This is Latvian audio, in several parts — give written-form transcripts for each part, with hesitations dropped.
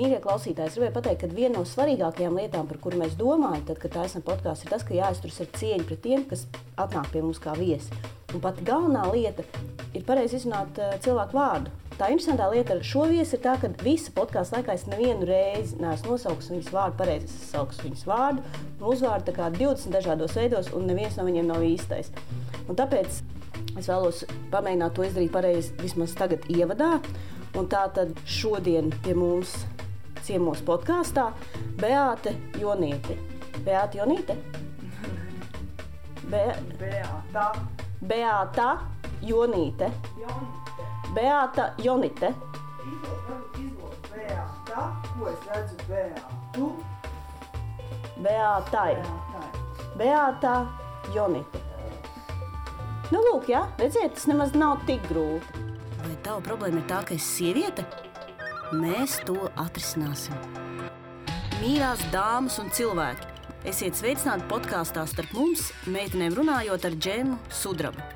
Mīļie klausītāji, es gribēju pateikt, ka viena no svarīgākajām lietām, par kuru mēs domājam, tad, kad taisam podkāstu, ir tas, ka jāizturas ar cieņu pret tiem, kas atnāk pie mums kā viesi. Un pat galvenā lieta ir pareizi izrunāt cilvēku vārdu. Tā interesantā lieta ar šo viesi ir tā, ka visa podkāsta laikā es nevienu reizi neesmu nosaukusi viņas vārdu pareizi. Es saukusi viņas vārdu un uzvārdu tā kā 20 dažādos veidos, un neviens no viņiem nav īstais. Un tāpēc es vēlos pamēģināt to izdarīt pareizi vismaz tagad ievadā. Un tā tad šodien pie mums ciemos podkāstā Beāte Jonīte. Beāte Jonīte? Beāta Jonīte. Beāta Jonīte. Izlūk Beāta, ko es redzu Beātu? Beātai. Beāta Jonīte. Nu lūk, jā, redziet, tas nemaz nav tik grūti. Vai tava problēma ir tā, ka esi sieviete? Mēs to atrisināsim. Mīļās dāmas un cilvēki, esiet sveicināti podkāstā Starp mums, meitenēm runājot ar Džemu Sudrabu.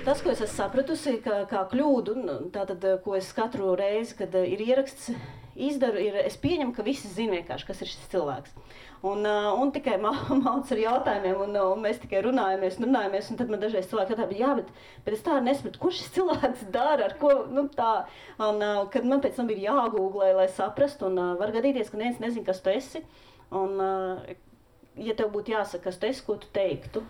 Tas, ko es esmu sapratusi, kā kļūdu, tātad, ko es katru reizi, kad ir ieraksts, izdaru, es pieņemu, ka visi zina vienkārši, kas ir šis cilvēks. Un tikai mauc ar jautājumiem, un mēs tikai runājamies, un tad man dažreiz cilvēki jautā, bet es tā nesapratu, ko šis cilvēks dara, ar ko, tā. Un kad man pēc tam ir jāgooglē, lai saprastu, un var gadīties, ka neviens nezina, kas tu esi. Un, ja tev būtu jāsaka, kas tu esi, ko tu teiktu?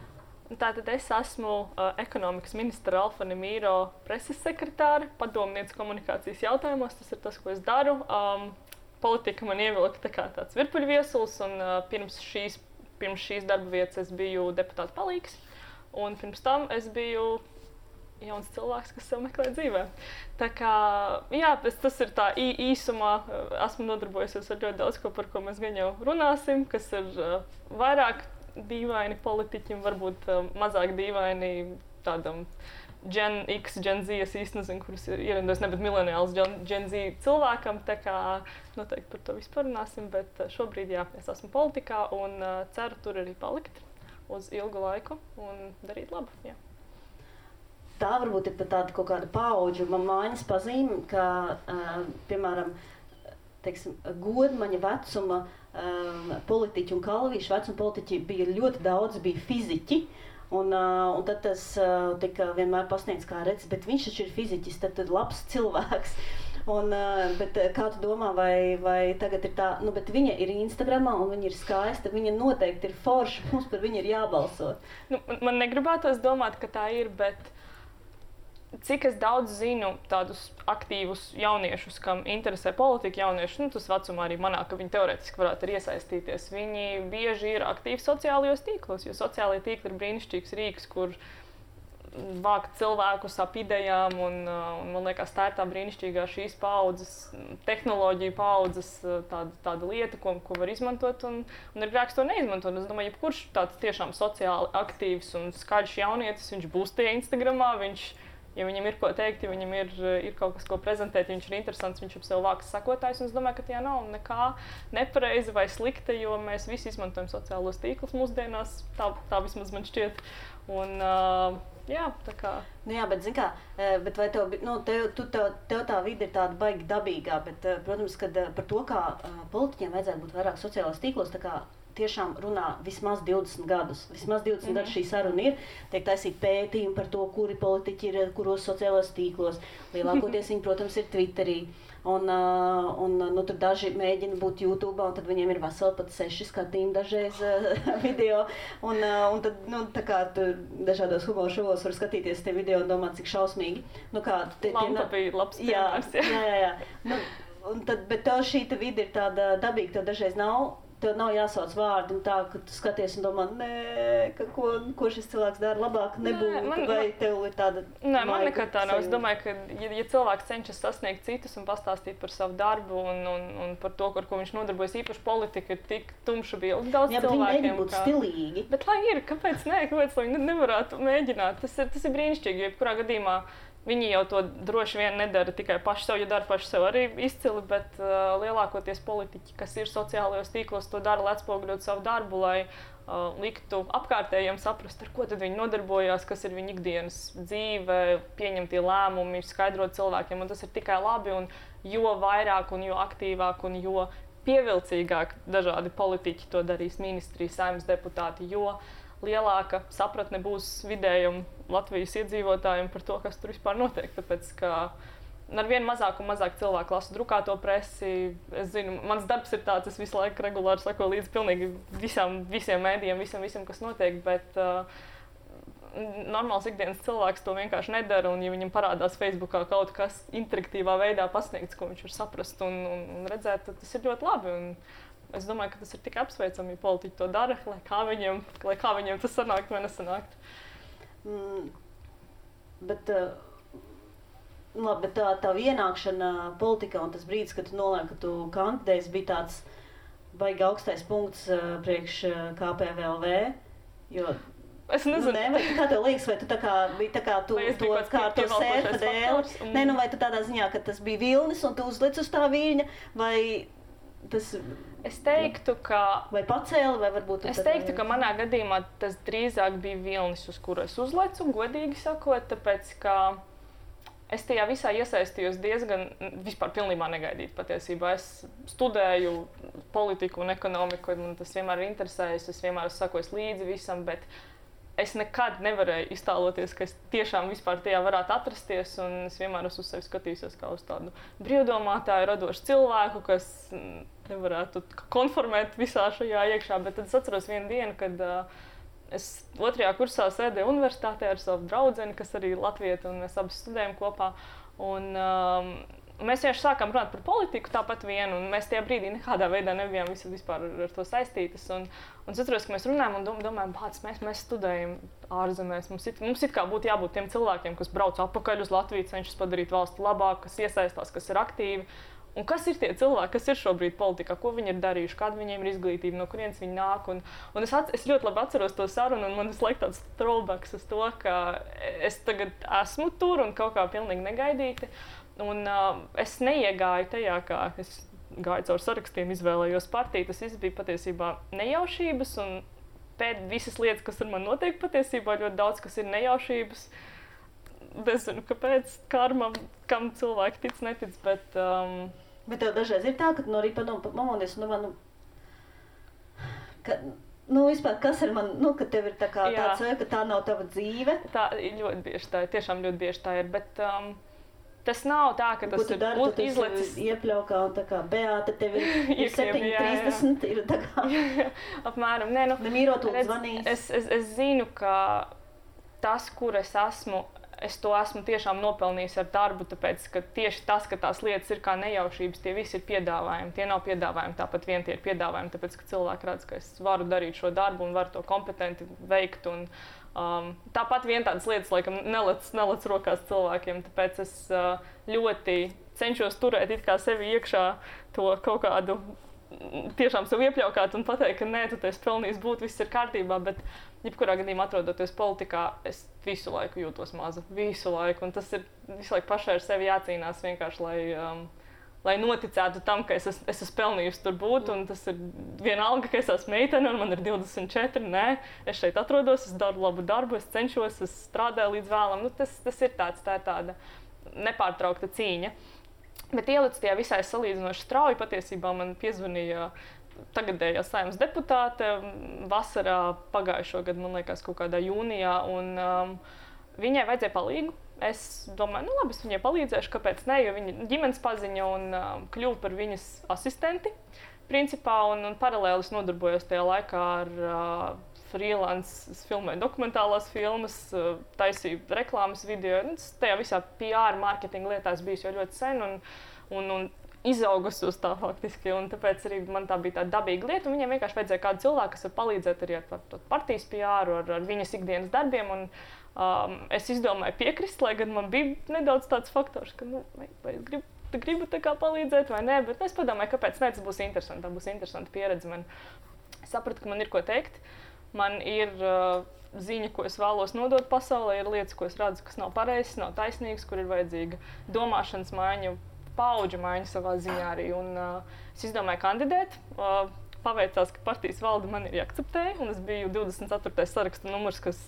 Tātad es esmu ekonomikas ministra Alfa Nemīro preses sekretāre, padomniece komunikācijas jautājumos. Tas ir tas, ko es daru. Politika man ievilka tā kā tāds virpuļviesulis, un pirms šīs darba vietas es biju deputāta palīgs, un pirms tam es biju jauns cilvēks, kas sev meklē dzīvē. Tā kā, jā, tas ir tā īsumā, esmu nodarbojusies ar ļoti daudz ko, par ko mēs gan jau runāsim, kas ir vairāk dīvaini politiķim, varbūt mazāk dīvaini tādam Gen X, Gen Z, es īsti nezinu, kurus ierindojis, ne, bet mileniāls Gen Z cilvēkam, tā kā noteikti par to vispār runāsim, bet šobrīd, jā, es esmu politikā un ceru tur arī palikt uz ilgu laiku un darīt labu, jā. Tā varbūt ir pat tāda kaut kāda paudžu maiņas pazīme, ka, piemēram, godmaņa vecuma politiķi un kalvīšu vecuma politiķi bija ļoti daudz, bija fiziķi, un tad tas tika vienmēr pasniegts kā redz, bet viņš taču ir fiziķis, tad labs cilvēks. Bet kā tu domā, vai tagad ir tā, bet viņa ir Instagramā un viņa ir skaista, viņa noteikti ir forša, mums par viņu ir jābalso. Man negribētos domāt, ka tā ir, bet cik es daudz zinu tādus aktīvus jauniešus, kam interesē politika, jaunieši, tas vecumā arī manā, ka viņi teorētiski varētu arī iesaistīties. Viņi bieži ir aktīvi sociālajos tīklos, jo sociālajie tīkli ir brīnišķīgs rīks, kur vākt cilvēkus ap idejām, un man liekas, tā ir tā brīnišķīgā šīs paaudzes, tehnoloģija paaudzes tāda lieta, ko var izmantot, un ir grēks to neizmantot. Es domāju, jebkurš tāds tiešām sociāli aktīvs un skaļš jaunietis, viņš būs tie Instagramā, ja viņam ir ko teikt, ja viņam ir kaut kas, ko prezentēt, ja viņš ir interesants, viņš ap sev vāks sakotājs, un es domāju, ka tajā nav nekā nepareiza vai slikta, jo mēs visi izmantojam sociālos tīklus mūsdienās, tā vismaz man šķiet. Un, jā, tā kā. Jā, bet zin kā, bet vai tev tā vide ir tāda baigi dabīgā, bet, protams, kad par to, kā politiķiem vajadzētu būt vairāk sociālos tīklos, tā kā tiešām runā vismaz 20 gadus. Vismaz 20 gadus šī saruna ir. Tiek taisīt pētījumi par to, kuri politiķi ir, kuros sociālos tīklos. Lielākoties viņi, protams, ir Twitterī. Tur daži mēģina būt YouTube, un tad viņiem ir veseli pat 6 skatījumi dažreiz video. Un tad, tā kā tur dažādos humora šovos var skatīties tie video un domāt, cik šausmīgi. Lampa bija labs piemērs. Jā. Bet tev šī vide ir tāda dabīga, tev dažreiz tev nav jāsauc vārdi un tā, ka tu skaties un domā, ko šis cilvēks dara labāk nebūtu, vai tev ir tāda... Nē, man nekad tā nav. Es domāju, ka ja cilvēks cenšas sasniegt citus un pastāstīt par savu darbu un par to, ar ko viņš nodarbojas, īpaši politika ir tik tumša bilde daudz cilvēkiem. Jā, bet viņi nebūt stilīgi. Bet lai ir, kāpēc viņi nevarētu mēģināt? Tas ir brīnišķīgi, jo jebkurā gadījumā Viņi jau to droši vien nedara tikai paši sev, ja dara paši sev arī izcili, bet lielākoties politiķi, kas ir sociālajos tīklos, to dara, lai atspoguļot savu darbu, lai liktu apkārtējiem saprast, ar ko tad viņi nodarbojās, kas ir viņa ikdienas dzīve, pieņemtie lēmumi, skaidrot cilvēkiem, un tas ir tikai labi, un jo vairāk un jo aktīvāk un jo pievilcīgāk dažādi politiķi to darīs, ministrijas, saimnes deputāti, jo lielāka sapratne būs vidējam Latvijas iedzīvotājiem par to, kas tur vispār notiek. Tāpēc, ka ar vien mazāk un mazāk cilvēku lasu drukāto presi. Es zinu, mans darbs ir tāds, es visu laiku regulāri sakoju līdzi pilnīgi visiem mēdījiem, visam, kas notiek, bet normāls ikdienas cilvēks to vienkārši nedara, un ja viņam parādās Facebookā kaut kas interaktīvā veidā pasniegts, ko viņš var saprast un redzēt, tad tas ir ļoti labi. Un es domāju, ka tas ir tikai apsveicami, ja politiķi to dara, lai kā viņiem tas sanāktu vai nesanāktu. Bet tā ienākšana politikā un tas brīdis, kad tu nolēmi, ka tu kandidējies, bija tāds baigi augstais punkts priekš KPVLV, jo es nezinu. Vai kā tev liekas, vai tu tā kā biji tā kā tu to sērfa dēli? Vai tu tādā ziņā, ka tas bija vilnis un tu uzlic uz tā viļņa, vai tas... Es teiktu, ka... Vai pacēli, vai varbūt... Es teiktu, ka manā gadījumā tas drīzāk bija vilnis, uz kuru es uzlecu, godīgi sakot, tāpēc, ka es tajā visā iesaistījos diezgan, vispār pilnībā negaidīt patiesībā. Es studēju politiku un ekonomiku, man tas vienmēr ir interesējis, es vienmēr esmu sakojis līdzi visam, bet es nekad nevarēju iztēloties, ka es tiešām vispār tajā varētu atrasties, un es vienmēr esmu uz sevi skatījusies kā uz tādu brīvdomātāju, radošu cilvēku, kas nevarētu konformēt visā šajā iekšā, bet tad es atceros vienu dienu, kad es 2. kursā sēdēju universitātē ar savu draudzeni, kas arī ir latvieta, un mēs abi studējam kopā, un mēs vienkārši sākām runāt par politiku tāpat vienu, un mēs tajā brīdī nekādā veidā nebijām vispār ar to saistītas. Un es atceros, ka mēs runājam un domājam, mēs studējam ārzemēs. Mums it kā būtu jābūt tiem cilvēkiem, kas brauc atpakaļ uz Latviju, cenšas padarīt valsti labāk, kas iesaistās, kas ir aktīvi. Un kas ir tie cilvēki, kas ir šobrīd politikā, ko viņi ir darījuši, kāda viņiem ir izglītība, no kurienes viņi nāk. Un es ļoti labi atceros to sarunu, un man visu laiku tāds throwbacks uz to, ka es tagad esmu tur un kaut kā pilnīgi negaidīti. Un es neiegāju tajā, kā es gāju caur sarakstiem, izvēlējos partiju. Tas viss bija patiesībā nejaušības, un pēc visas lietas, kas ar mani notiek patiesībā, ļoti daudz, kas ir nejaušības. Nezinu, kāpēc, karma, kam cilvēki tic, netic, bet... Bet tev dažreiz ir tā, ka tu no rīta pamodies un domā, vispār, kas ir man, ka tev ir tā kā tāds, ka tā nav tava dzīve? Tā ir ļoti bieži tā ir, tiešām ļoti bieži tā ir, bet tas nav tā, ka tas ir izlecis... Iepļaukā un tā kā Beāta, tev ir 7:30, ir tā kā... Apmēram, Nemīrot un zvanīs. Es zinu, ka tas, kur es esmu, es to esmu tiešām nopelnījis ar darbu, tāpēc, ka tieši tas, ka tās lietas ir kā nejaušības, tie visi ir piedāvājumi. Tie nav piedāvājumi, tāpat vien tie ir piedāvājumi, tāpēc, ka cilvēki redz, ka es varu darīt šo darbu un varu to kompetenti veikt. Un, tāpat vien tādas lietas, laikam, nelec rokās cilvēkiem, tāpēc es ļoti cenšos turēt it kā sevi iekšā to kaut kādu tiešām sev iepļaukāt un pateikt, ka nē, tu esi pelnījis būt, viss ir kārtībā, bet jebkurā gadījumā atrodoties politikā, es visu laiku jūtos maza, visu laiku, un tas ir visu laiku pašai ar sevi jācīnās vienkārši, lai noticētu tam, ka es esmu pelnījusi tur būt, un tas ir vienalga, ka es esmu meitene, un man ir 24, nē, es šeit atrodos, es daru labu darbu, es cenšos, es strādāju līdz vēlam, tas ir tā ir tāda nepārtraukta cīņa. Bet ielicis tajā visai salīdzinoši strauji, patiesībā man piezvanīja tagadējā Saeimas deputāte vasarā pagājušo gadu, man liekas, kaut kādā jūnijā, un viņai vajadzēja palīgu. Es domāju, labi, es viņai palīdzēšu, kāpēc ne, jo viņa ģimenes paziņa un kļuva par viņas asistenti, principā, un paralēli es nodarbojos tajā laikā ar freelance, es filmēju dokumentālās filmas, taisīju reklāmas video. Tajā visā PR, marketinga lietās bijis jau ļoti sen un izaugusi uz tā faktiski. Un tāpēc arī man tā bija tāda dabīga lieta. Un viņiem vienkārši vajadzēja kādu cilvēku, kas var palīdzēt arī ar partijas PR, ar viņas ikdienas darbiem. Un, es izdomāju piekrist, lai gan man bija nedaudz tāds faktors, ka vai es gribu tā kā palīdzēt vai nē. Bet es padomāju, kāpēc ne, tas būs interesanti. Tā būs interesanta pieredze. Es sapratu, ka man ir ko teikt. man ir ziņa, ko es vēlos nodot pasaulē, ir lietas, ko es redzu, kas nav pareizas, nav taisnīgas, kur ir vajadzīga domāšanas maiņa, paudžu maiņa savā ziņā arī. Un es izdomāju kandidēt. Paveicās, ka partijas valde man ir jāakceptēja, un es biju 24. saraksta numurs, kas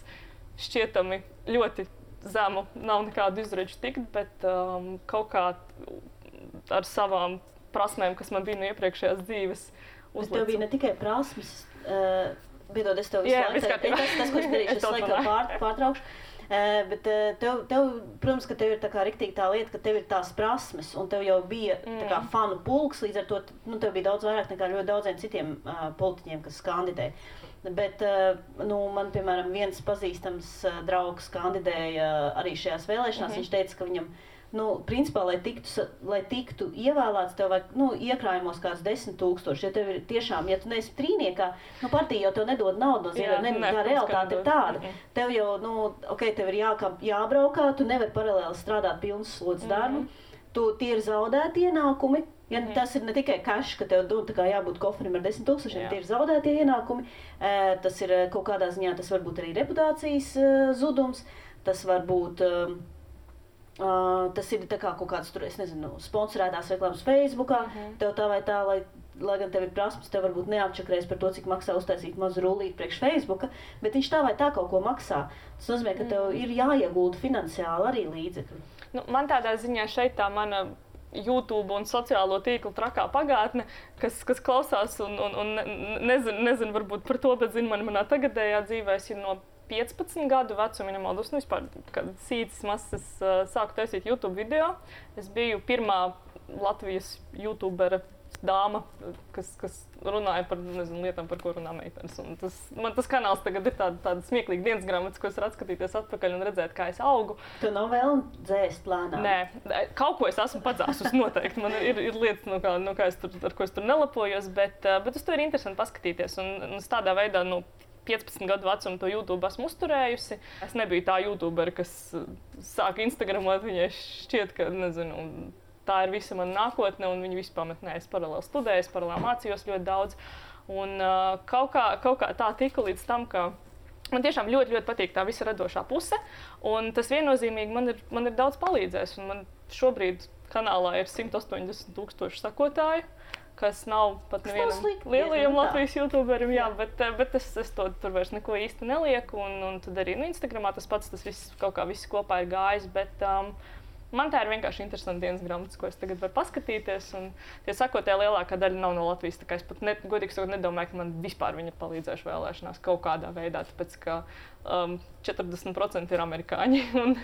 šķietami ļoti zemu, nav nekādu izredžu tikt, bet kaut kā ar savām prasmēm, kas man bija no iepriekšējās dzīves, uzlicu. Bet tev bija ne tikai prasmes, piedod, es tev visu laiku, tas, ko es darīšu, es laiku pārtraukšu. Bet tev, protams, ka tev ir tā kā riktīgi tā lieta, ka tev ir tās prasmes, un tev jau bija tā kā fanu pulks, līdz ar to tev bija daudz vairāk nekā ļoti daudziem citiem politiķiem, kas kandidē. Bet man, piemēram, viens pazīstams draugs kandidēja arī šajās vēlēšanās, viņš teica, ka viņam principā, lai tiktu ievēlēts, tev vajag, iekrājumos kāds 10 000. Ja tev ir tiešām, ja tu neesi trīniekā, partija jau tev nedod naudu no ziņām, tā realitāte ir tāda. Tev jau, tev ir jābraukā, tu nevari paralēli strādāt pilnas slodzes darbu. Tie ir zaudēti ienākumi. Ja tas ir ne tikai cash, ka tev jābūt koferim ar 10 000, tie ir zaudēti ienākumi. Tas ir kaut kādā ziņā, tas var būt arī reputācijas zudums, tas var būt... tas ir tā kā kaut kāds, es nezinu, sponsorētās reklāmas Facebookā, tev tā vai tā, lai gan tev ir prasmes, tev varbūt neapčakrēs par to, cik maksā uztaisīt mazu rullīti priekš Facebooka, bet viņš tā vai tā kaut ko maksā. Tas nozīmē, ka tev ir jāiegulda finansiāli arī līdzekļi. Man tādā ziņā šeit tā mana YouTube un sociālo tīklu trakā pagātne, kas klausās un nezinu varbūt par to, bet zinu manā tagadējā dzīvē, es ir no 15 gadu vecuma, nemaldos, vispār, kad sīcis masas sāku taisīt YouTube video. Es biju pirmā Latvijas YouTubera dāma, kas runāja par lietām, par ko runā meitenes. Man tas kanāls tagad ir tāda smieklīga dienas grāmatas, ko es varu atskatīties atpakaļ un redzēt, kā es augu. Tu nav vēl dzēst plānā? Nē, kaut ko es esmu padzāsus noteikti. Man ir lietas, ar ko es tur nelapojos, bet uz to ir interesanti paskatīties. Un es tādā veidā, 15 gadu vecumu to YouTube esmu uzturējusi. Es nebiju tā YouTuberi, kas sāka Instagramot, viņai šķiet, ka, tā ir visa mana nākotne, un viņi visu pamet. Nē, es paralēli studēju, paralēli mācījos ļoti daudz. Un kaut kā tā tika līdz tam, ka man tiešām ļoti, ļoti patīk tā visa radošā puse, un tas viennozīmīgi man ir daudz palīdzējis. Un man šobrīd kanālā ir 180 000 sakotāju, kas nav pat nevienam lielajam Latvijas YouTuberim, bet es to tur vairs neko īsti nelieku, un tad arī Instagramā tas pats, tas viss kaut kā viss kopā ir gājis, bet man tā ir vienkārši interesanta dienas grāmatas, ko es tagad varu paskatīties, un tie sakotāji lielākā daļa nav no Latvijas, tā kā es pat godīgi sakot nedomāju, ka man vispār viņi ir palīdzējuši vēlēšanās kaut kādā veidā, tāpēc ka 40% ir amerikāņi, un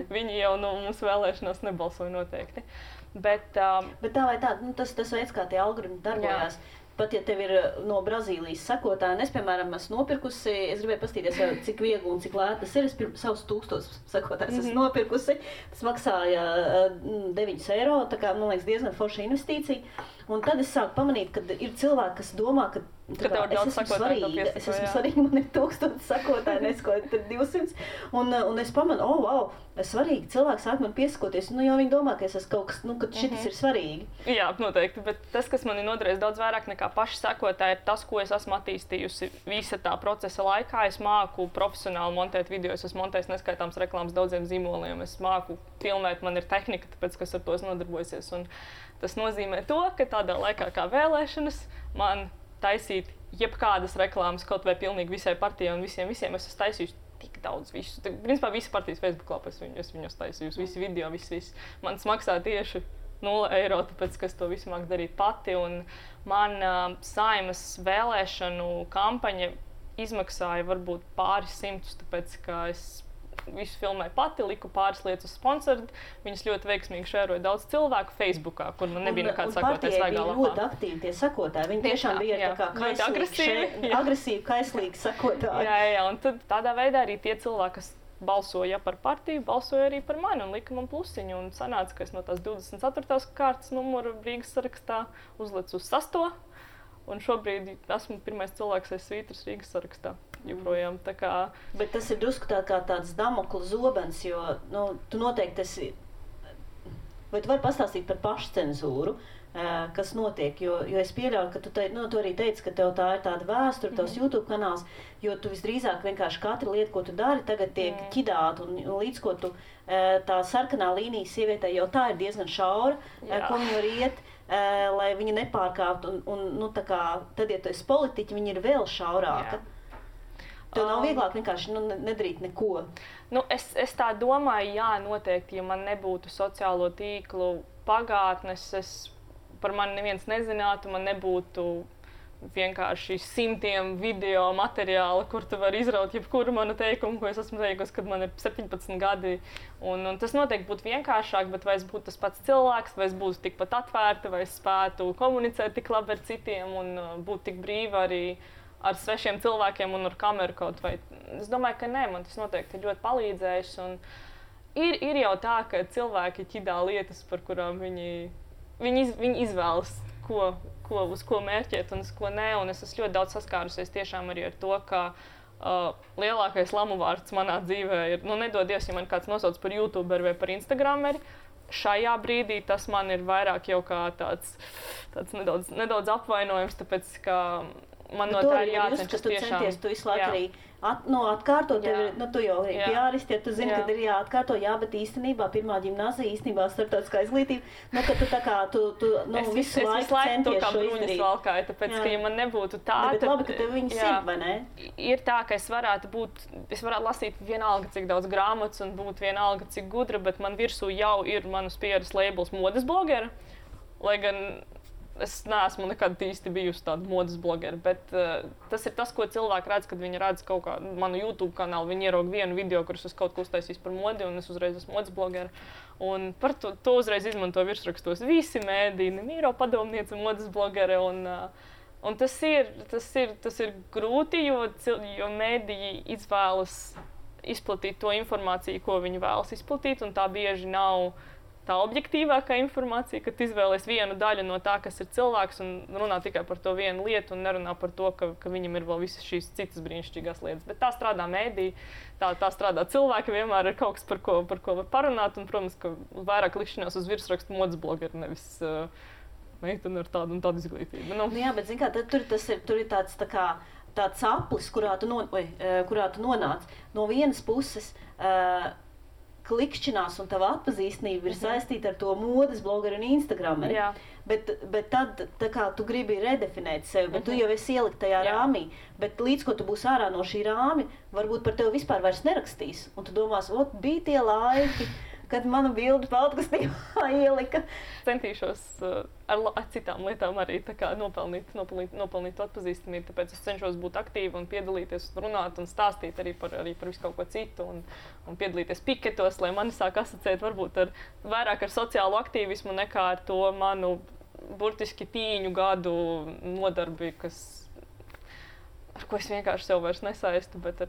viņi jau no mūsu vēlēšanās nebalsoja noteikti. Bet tā vai tā, tas veids, kā tie algoritmi darbojās. Pat ja tev ir no Brazīlijas sekotāji, es, piemēram, esmu nopirkusi, es gribēju paskatīties, cik viegli un cik lēti tas ir. Es savus 1000 sekotājus esmu nopirkusi. Tas maksāja 9 eiro, tā kā, man liekas, diezgan forša investīcija. Un tad es sāku pamanīt, ka ir cilvēki, kas domā, ka es esmu svarīga, man ir 1000 sekotāji, nesko 200. Un es pamanu, wow, svarīgi, cilvēki sāk man piesakoties, jo viņi domā, ka es esmu kaut kas, ka šitas ir svarīgi. Jā, noteikti, bet tas, kas man ir noderējis daudz vairāk nekā paši sekotāji, ir tas, ko es esmu attīstījusi visa tā procesa laikā. Es māku profesionāli montēt video, es esmu montējis neskaitāms reklāmas daudziem zīmoliem, es māku filmēt, man ir tehnika, tāpēc, kas ar to es nodarbojusies. Un tas nozīmē to, ka tādā laikā kā vēlēšanas man taisīt jebkādas reklāmas, kaut vai pilnīgi visai partijai un visiem es esmu taisījusi tik daudz visu. Principā visa partijas Facebook lapā es viņus taisījusi, visi video, viss. Man maksā tieši 0 eiro, tāpēc, ka es to visu māku darīt pati. Un man Saeimas vēlēšanu kampaņa izmaksāja varbūt pāris simtus, tāpēc, ka es visu filmēju pati, liku pāris lietas uz sponsoru. Viņas ļoti veiksmīgi šēroja daudz cilvēku Facebookā, kur man nebija nekāds sakotājs svaigā lapā. Un ļoti aktīvi tie sakotāji. Viņi tiešām bija tā kā agresīvi, kaislīgi sakotāji. Jā, un tad tādā veidā arī tie cilvēki, kas balsoja par partiju, balsoja arī par mani un lika man plusiņu. Un sanāca, ka es no tās 24. kārtas numuru Rīgas sarakstā uzlicu uz 6. Un šobrīd esmu pirmais cilvēks aiz svītras Rīgas sarakstā. Joprojām, tā kā... Bet tas ir drusku tāds Damokla zobens, jo tu noteikti esi vai tu vari pastāstīt par pašcenzūru, kas notiek, jo es pieļauju, ka tu arī teici, ka tev tā ir tāda vēsture, tavs YouTube kanāls, jo tu visdrīzāk vienkārši katra lieta, ko tu dari, tagad tiek ķidāta, un līdz ko tu tā sarkanā līnija sievietē jau tā ir diezgan šaura, ko viņa var iet, lai viņa nepārkāptu, un nu, tā kā, tad, ja tu esi politiķi, viņa ir vēl šaurāka. Tev nav vieglāk vienkārši nedarīt neko. Nu, es tā domāju, jā, noteikti, ja man nebūtu sociālo tīklu pagātnes, par mani neviens nezinātu, man nebūtu vienkārši simtiem video materiāla, kur tu vari izraut jebkuru manu teikumu, ko es esmu teikusi, kad man ir 17 gadi. Un tas noteikti būtu vienkāršāk, bet vai es būtu tas pats cilvēks, vai es būtu tikpat atvērta, vai es spētu komunicēt tik labi ar citiem un būt tik brīva arī ar svešiem cilvēkiem un ar kameru kaut vai. Es domāju, ka nē, man tas noteikti ir ļoti palīdzējis. Un ir jau tā, ka cilvēki ķidā lietas, par kurām viņi izvēlas, uz ko mērķēt un uz ko nē. Un es esmu ļoti daudz saskārusies tiešām arī ar to, ka lielākais lamu vārds manā dzīvē ir, nedod Dievs, ja man kāds nosauc par YouTuberi vai par Instagrameri. Šajā brīdī tas man ir vairāk jau kā tāds nedaudz apvainojums, tāpēc, ka man no tā ir jācenšas tiešām. Tu visu laiku arī atkārtot, tu jau arī piāristi, ja tu zini, kad ir jāatkārto, bet īstenībā pirmā ģimnāzija, īstenībā starptautiskā izglītība, ka tu tā kā, visu laiku centies šo izdarīt. Valkāju, tāpēc, ka ja man nebūtu tā, bet labi, ka tev viņi zina, vai ne? Ir tā, ka es varētu lasīt vienalga, cik daudz grāmatas un būt vienalga, cik gudra, bet man virsū jau ir manas pieras labels modes blogera, lai gan es neesmu nekad īsti bijusi tāda modes blogera, bet tas ir tas, ko cilvēki redz, kad viņi redz kaut kādu manu YouTube kanālu. Viņi ieraug vienu video, kurus es kaut ko uztaisīju par modi, un es uzreiz esmu modes blogera. Un par to uzreiz izmanto virsrakstos visi mēdīni, Mīro padomniece, modes blogere. Un tas ir grūti, jo mēdīji izvēlas izplatīt to informāciju, ko viņi vēlas izplatīt, un tā bieži nav tā objektīvākā informācija, ka tu izvēlies vienu daļu no tā, kas ir cilvēks, un runā tikai par to vienu lietu, un nerunā par to, ka viņam ir vēl visas šīs citas brīnišķīgās lietas. Bet tā strādā mēdī, tā strādā cilvēki, vienmēr ir kaut kas, par ko var parunāt, un, protams, ka vairāk likšanās uz virsrakstu modes blogeri, nevis meitene ar tādu un tādu izglītību. Jā, bet, zin kā, tur ir tāds aplis, kurā tu nonāc. No vienas puses, klikšķinās un tava atpazīstamība ir saistīta ar to modes blogeru un Instagrameri. Bet tad tā kā tu gribi redefinēt sevi, bet tu jau esi ielikt tajā rāmī. Bet līdz ko tu būsi ārā no šī rāmi, varbūt par tevi vispār vairs nerakstīs. Un tu domās, bija tie laiki, kad mana bilde peltkastībā ielika. Centīšos ar citām lietām arī tā kā nopelnīt atpazīstamību, tāpēc es cenšos būt aktīva un piedalīties, runāt un stāstīt arī par visu kaut ko citu un piedalīties piketos, lai mani sāk asociēt varbūt vairāk ar sociālo aktīvismu nekā ar to manu burtiski tīņu gadu nodarbi, ar ko es vienkārši sev vairs nesaistu, bet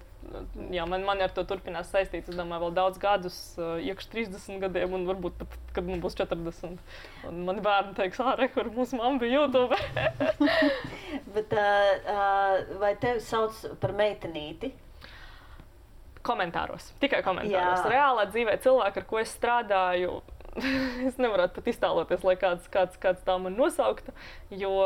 man ar to turpinās saistīt, es domāju, vēl daudz gadus, iekš 30 gadiem, un varbūt pat, kad man būs 40. Un mani bērni teiks, kur mūsu mamma bija YouTube. Bet vai tevi sauc par meitenīti? Komentāros, tikai komentāros. Reālā dzīvē cilvēki, ar ko es strādāju, es nevarētu pat iztēloties, lai kāds tā man nosauktu, jo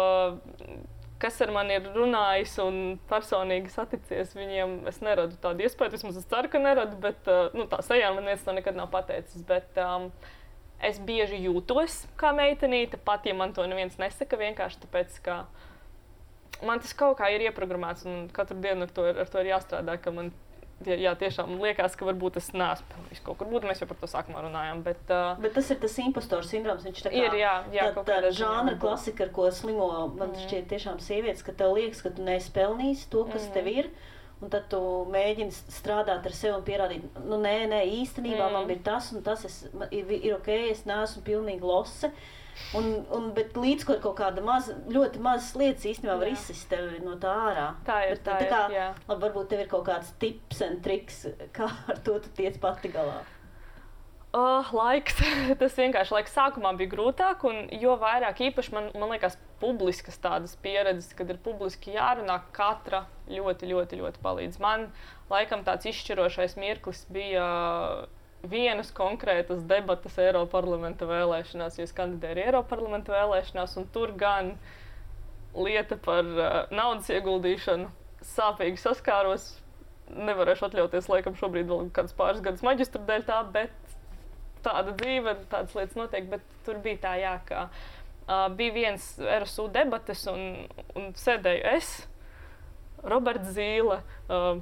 kas ar mani ir runājis un personīgi saticies, viņiem es neradu tādu iespēju, vismaz es ceru, ka neradu, bet tā sejā man neviens to nekad nav pateicis. Bet es bieži jūtos kā meitenīte, pat ja man to neviens nesaka, vienkārši tāpēc, ka man tas kaut kā ir ieprogrammēts un katru dienu ar to ir jāstrādā, ka man tiešām liekas, ka varbūt es neesmu pelnījis kaut kur būt, mēs jau par to sākumā runājām, bet tas ir tas impostoru sindroms, viņš tā kā ir, tā žānra klasika, ar ko slimo, man šķiet tiešām sievietes, ka tev liekas, ka tu neesi pelnījis to, kas tev ir, un tad tu mēģini strādāt ar sevi un pierādīt, nē, īstenībā man ir tas un tas, ir ok, es neesmu pilnīgi lose. Bet līdz ko kaut kāda ļoti mazas lietas īstenībā var izsist tevi no tā ārā. Tā ir. Labi, varbūt tev ir kaut kāds tips un triks, kā ar to tu tiec pati galā. Laiks. Tas vienkārši laiks sākumā bija grūtāk, un jo vairāk īpaši man liekas publiskas tādas pieredzes, kad ir publiski jārunā, katra ļoti, ļoti, ļoti palīdz. Man laikam tāds izšķirošais mirklis bija vienas konkrētas debatas Eiroparlamenta vēlēšanās, jo es kandidēju Eiroparlamenta vēlēšanās, un tur gan lieta par naudas ieguldīšanu sāpīgi saskāros. Nevarēšu atļauties, laikam, šobrīd vēl kāds pāris gadus maģistra dēļ tā, bet tāda dzīve, tādas lietas notiek, bet tur bija tā, jā, ka bija viens RSU debates, un sēdēju es, Roberts Zīle,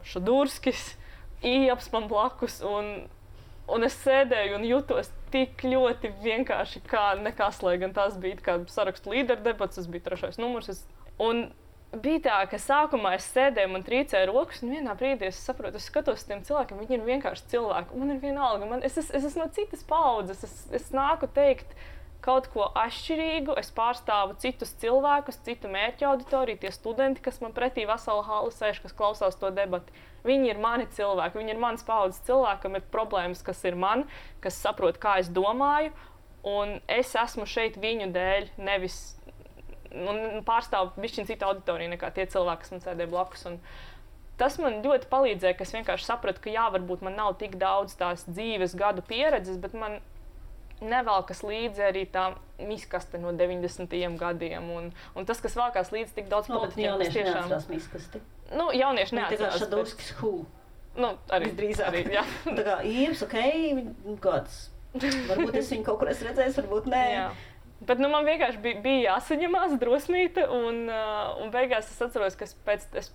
Šadurskis, Ieps man blakus, un es sēdēju un jutos tik ļoti vienkārši kā nekas, lai gan tās bija kā sarakstu līderu debats, tas bija 3. numurs. Un bija tā, ka sākumā es sēdēju, man trīcēja rokas, un vienā brīdī es saprotu, es skatos uz tiem cilvēkiem, viņi ir vienkārši cilvēki. Man ir vienalga, es esmu no citas paudzes, es nāku teikt kaut ko atšķirīgu, es pārstāvu citus cilvēkus, citu mērķu auditoriju, tie studenti, kas man pretī vesela hala sēž, kas klausās to debati. Viņi ir mani cilvēki, viņi ir manas paudzes cilvēki, kam ir problēmas, kas ir man, kas saprot, kā es domāju, un es esmu šeit viņu dēļ, nevis pārstāvu bišķiņ citu auditoriju nekā tie cilvēki, kas man sēdēja blakus. Un tas man ļoti palīdzēja, ka es vienkārši sapratu, ka jā, varbūt man nav tik daudz tās dzīves gadu pieredzes, bet man nevelkas līdzi arī tā miskaste no 90. gadiem. Un tas, kas velkās līdzi tik daudz politiķiem, kas tiešām... Neatcerās miskasti. Jaunieši neatcerās. Tā kā Šadurskis Hū. Arī drīzāk. Jā. Tā kā Ieps, kāds. Varbūt es viņu kaut kur esmu redzējis, varbūt nē. Jā. Bet man vienkārši bija jāsaņemās drosmīte, un beigās es atceros, ka es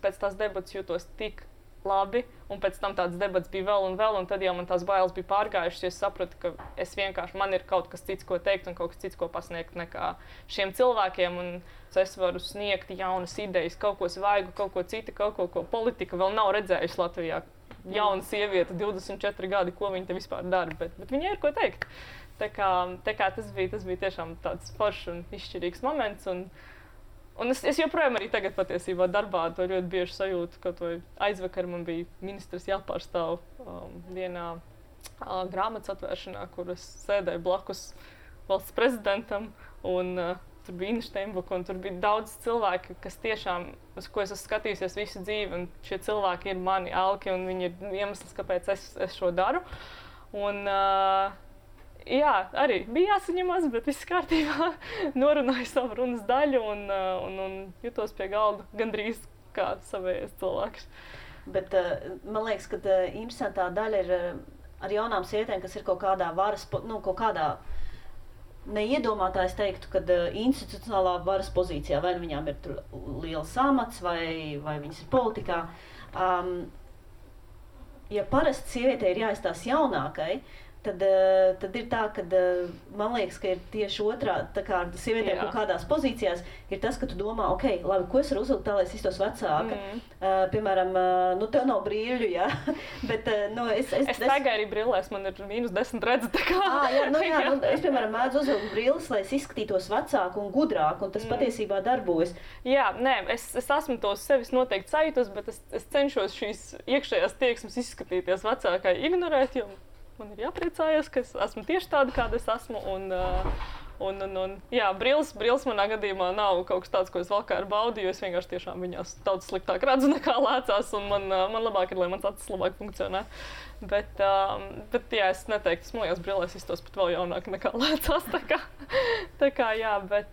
pēc tās debatas jūtos tik labi, un pēc tam tādas debats bija vēl, un tad jau man tās bailes bija pārgājušas, jo es sapratu, ka man ir kaut kas cits, ko teikt, un kaut kas cits, ko pasniegt nekā šiem cilvēkiem, un es varu sniegt jaunas idejas, kaut ko svaigu, kaut ko citu, kaut ko politika vēl nav redzējusi Latvijā. Jauna sieviete, 24 gadi, ko viņa te vispār dara, bet viņai ir ko teikt. Tā kā tas bija tiešām tāds foršs un izšķirīgs moments, un es joprojām arī tagad patiesībā darbā to ļoti bieži sajūtu, ka aizvakar man bija ministrs jāpārstāv vienā grāmatas atvēršanā, kur es sēdēju blakus valsts prezidentam, un tur bija Ina Steinbuka, un tur bija daudz cilvēki, kas tiešām, uz ko es esmu skatījusies visu dzīvi, un šie cilvēki ir mani elki, un viņi ir iemesls, kāpēc es šo daru. Un jā, arī bija jāsaņemās, bet viss kārtībā, norunāju savu runas daļu un jutos pie galda gandrīz kā savējais cilvēks. Bet man liekas, ka interesantā daļa ir ar jaunām sievietēm, kas ir kaut kādā varas, kaut kādā neiedomātājs teiktu, ka institucionālā varas pozīcijā, vai viņām ir tur liels amats, vai viņas ir politikā. Ja parasti sievietei ir jāizstās jaunākai, tad ir tā, ka man liekas, ka ir tieši otrā, tā kā sievietēm kaut kādās pozīcijās, ir tas, ka tu domā, ok, labi, ko es varu uzvilkt tā, lai es iztos vecāka. Piemēram, tev nav brīļu, jā, bet, es tagad arī brillēs, man ir -10 redzi, tā kā. Es, piemēram, mēdzu uzvilkt brilles, lai es izskatītos vecāku un gudrāku, un tas patiesībā darbojas. Jā, nē, es esmu to sevis noteikti sajūtos, bet es cenšos šīs iekšējās tieksmes izskatīties vecākai ignorēt, jo man ir jāpriecājas, ka es esmu tieši tāda, kāda es esmu, un jā, brilles manā gadījumā nav kaut kas tāds, ko es valkā ar baudi, jo es vienkārši tiešām viņās daudz sliktāk redzu nekā lēcās, un man labāk ir, lai mans acis labāk funkcionē. Bet jā, es neteiktu, es mojās brillēs iztos pat vēl jaunāk nekā lēcās, tā kā jā, bet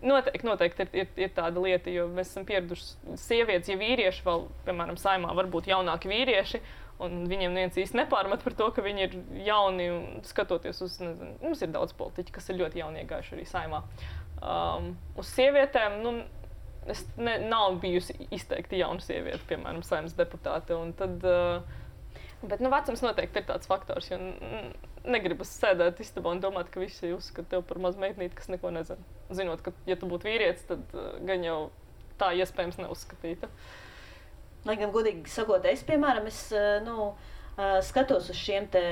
noteikti ir tāda lieta, jo mēs esam pieraduši sievietes, ja vīrieši vēl, piemēram, Saeimā varbūt jaunāki vīrieši, un viņiem viens īsti nepārmet par to, ka viņi ir jauni, un skatoties uz, nezinu, mums ir daudz politiķi, kas ir ļoti jauni iegājuši arī Saeimā. Uz sievietēm, nav bijusi izteikti jauna sieviete, piemēram, Saeimas deputāte, un tad, bet, vecums noteikti ir tāds faktors, jo negribas sēdēt istabā un domāt, ka visi uzskata tev par mazu meitnīti, kas neko nezina. Zinot, ka, ja tu būtu vīrietis, tad gan jau tā iespējams neuzskatīta. Lai gan godīgi sakot, es, piemēram, skatos uz šiem te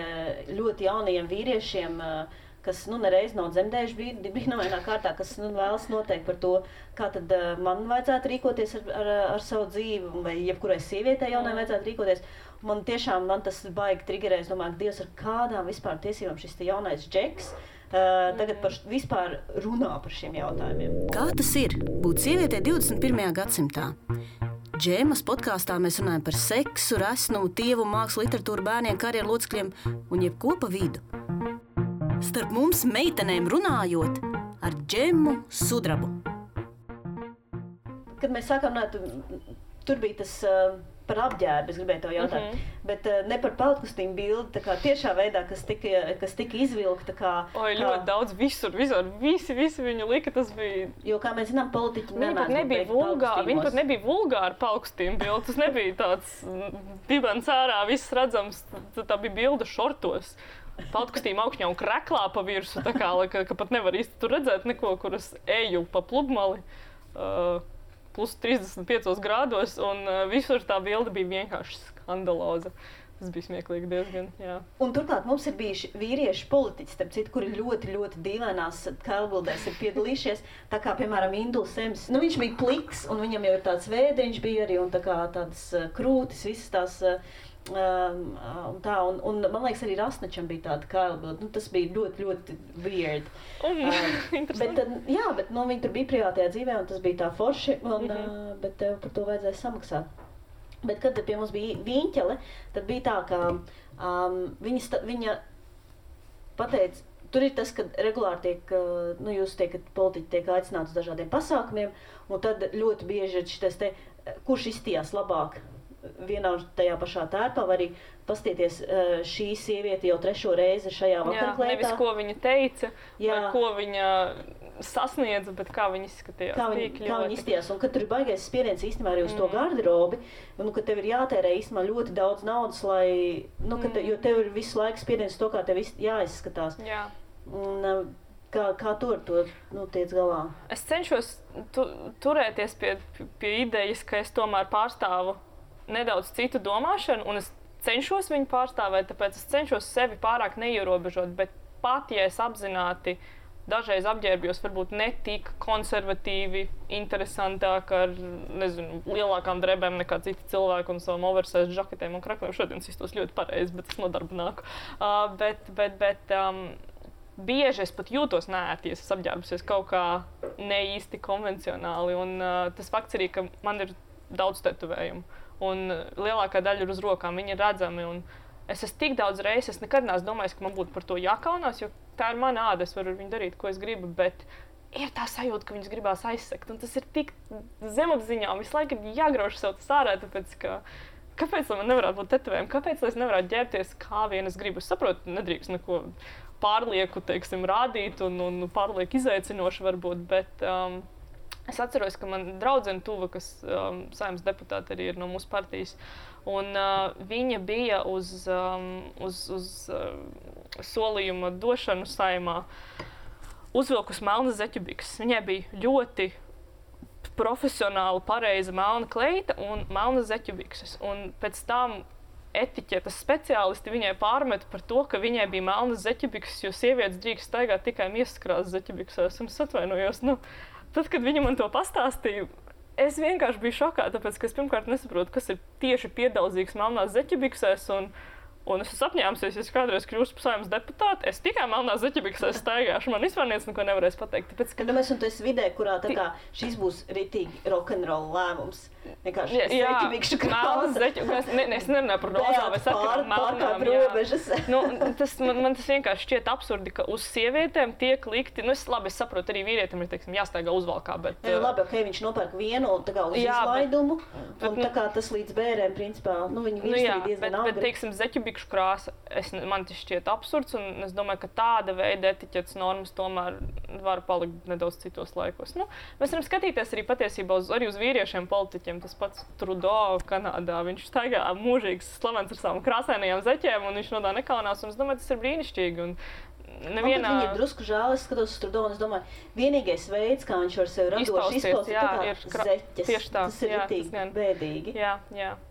ļoti jaunajiem vīriešiem, kas nereiz nav dzemdējuši brīnumainā kārtā, kas vēlas noteikt par to, kā tad man vajadzētu rīkoties ar savu dzīvi, vai jebkurai sievietei jaunai vajadzētu rīkoties. Man tas baigi trigerē, es domāju, Dievs, ar kādām vispār tiesībām šis te jaunais džeks tagad vispār runā par šiem jautājumiem. Kā tas ir būt sievietei 21. gadsimtā? Džemas podkāstā mēs runājam par seksu, resnumu, tievumu, mākslu, literatūru, bērniem, karjeru locekļiem un jebko pa vidu. Starp mums meitenēm runājot ar Džemu Sudrabu. Kad mēs sākām runāt, tur bija tas par apģērbu, es gribēju tev jautāt, bet ne par peltkostīmu bildi, tā kā tiešā veidā, kas tika izvilkta. Ļoti daudz, visur, visi viņu lika, tas bija... Jo, kā mēs zinām, politiķi Viņi pat nebija vulgāri peltkostīmu bildi, tas nebija tāds dibens ārā, viss redzams, tā bija bilde šortos. Peltkostīmu augšņā un kreklā pa virsu, tā kā, ka pat nevar īsti tur redzēt neko, kur es eju pa pludmali. Plus 35 grādos, un visur tā bilde bija vienkārši skandaloza. Tas bija smieklīgi diezgan, jā. Un turklāt mums ir bijuši vīrieši politiķi, starp citu, kuri ļoti, ļoti dīvainās kailbildēs ir piedalījušies. Tā kā, piemēram, Induls Sems, viņš bija pliks, un viņam jau ir tāds vēdriņš bija arī, un tā kā tādas krūtis, visas tās... un man liekas, arī Rasnačam bija tāda kailbilde. Tas bija ļoti, ļoti weird. Bet viņi tur bija privātajā dzīvē, un tas bija tā forši, bet tev par to vajadzēja samaksāt. Bet, kad pie mums bija Viņķele, tad bija tā, ka viņa pateica, tur ir tas, ka regulāri tiek, jūs tiekat, politiķi tiek aicināti uz dažādiem pasākumiem, un tad ļoti bieži ir šitas te, kurš izstījās labāk vienā tajā pašā tērpā, vai arī pastieties šī sieviete jau 3. reizi šajā vakarklētā. Nevis, ko viņa teica, vai ko viņa sasniedza, bet kā viņa izskatījās. Kā viņa izskatījās, un kad tur ir baigais spiediens īstenībā arī uz to garderobi, un ka tev ir jātērē īstenībā ļoti daudz naudas, lai, jo tev ir visu laiku spiediens to, kā tev jāizskatās. Jā. Un, Kā tu ar to tiec galā? Es cenšos turēties pie idejas, ka es tomēr pārstāvu nedaudz citu domāšanu, un es cenšos viņu pārstāvēt, tāpēc es cenšos sevi pārāk neierobežot, bet pat, ja es apzināti dažreiz apģērbjos varbūt ne tik konservatīvi, interesantāk ar, lielākām drebēm nekā citi cilvēki un savam oversize žaketēm un krakliem. Šodien iztos ļoti pareizi, bet es nodarbu nāku. Bieži es pat jūtos neērti, ja es apģērbusies kaut kā ne īsti konvencionāli, un tas fakts arī, ka man ir daudz tetovējumu. Un lielākā daļa ir uz rokām, viņi ir redzami. Un es esmu tik daudz reizes, es nekad neesmu domājis, ka man būtu par to jākaunās, jo tā ir mana āda, es varu viņu darīt, ko es gribu, bet ir tā sajūta, ka viņus gribās aizsekt. Un tas ir tik zemapziņā, visu laiku ir jāgrauž sev tas ārā, tāpēc, ka kāpēc man nevarētu būt tetovējumi, kāpēc es nevarētu ģērbties, kā vien es gribu. Es saprotu, nedrīkst neko pārlieku, rādīt un pārlieku izaicinoši varbūt, bet... Es atceros, ka man draudzene tuva, kas Saeimas deputāte arī ir no mūsu partijas, un viņa bija uz solījuma došanu Saeimā uzvilkus melnas zeķubikses. Viņai bija ļoti profesionāli pareiza melna kleita un melnas zeķubikses. Un pēc tam etiķetes speciālisti viņai pārmeta par to, ka viņai bija melnas zeķubikses, jo sievietes drīkst staigāt tikai miesaskrāsas zeķubiksēs. Un es atvainojos, tad, kad viņa man to pastāstīja, es vienkārši biju šokā, tāpēc, ka es pirmkārt nesaprotu, kas ir tieši piedauzīgs melnās zeķubiksēs, un es esmu apņēmusies, ja es kādreiz kļūstu par Saeimas deputāti, es tikai melnās zeķubiksēs staigāšu, man vispār neko nevarēs pateikt. Tāpēc, ka... Mēs un tu esi vidē, kurā tā kā šis būs ritīgi rock'n'roll lēmums. Vienkārši zeķubikšu krāsa. Es nerunāju par rozā, vai saku melnām. Man tas vienkārši šķiet absurdi, ka uz sievietēm tiek likti, es saprotu, arī vīrietim ir, jāstaigā uzvalkā, bet... Labi, viņš nopērk vienu tā kā uz izlaidumu, un tā kā tas līdz bērēm, principā, viņi visi diezgan agri. Bet, bikšu krāsa, man tas šķiet absurds, un es domāju, ka tāda veida etiķetes normas tomēr var palikt nedaudz citos laikos. Mēs varam skatīties arī patiesībā arī uz vīriešiem politiķiem. Tas pats Trudeau Kanādā, viņš staigā mūžīgs slavens ar savām krāsainajām zeķēm, un viņš no tā nekaunās, un es domāju, tas ir brīnišķīgi. Un nevienā... Man viņa ir drusku žēl, es skatos uz Trudeau, un es domāju, vienīgais veids, kā viņš var sevi radoši izpaust, ir zeķes. Tieši tā. Tas ir ritīgi bēdīgi. Jā.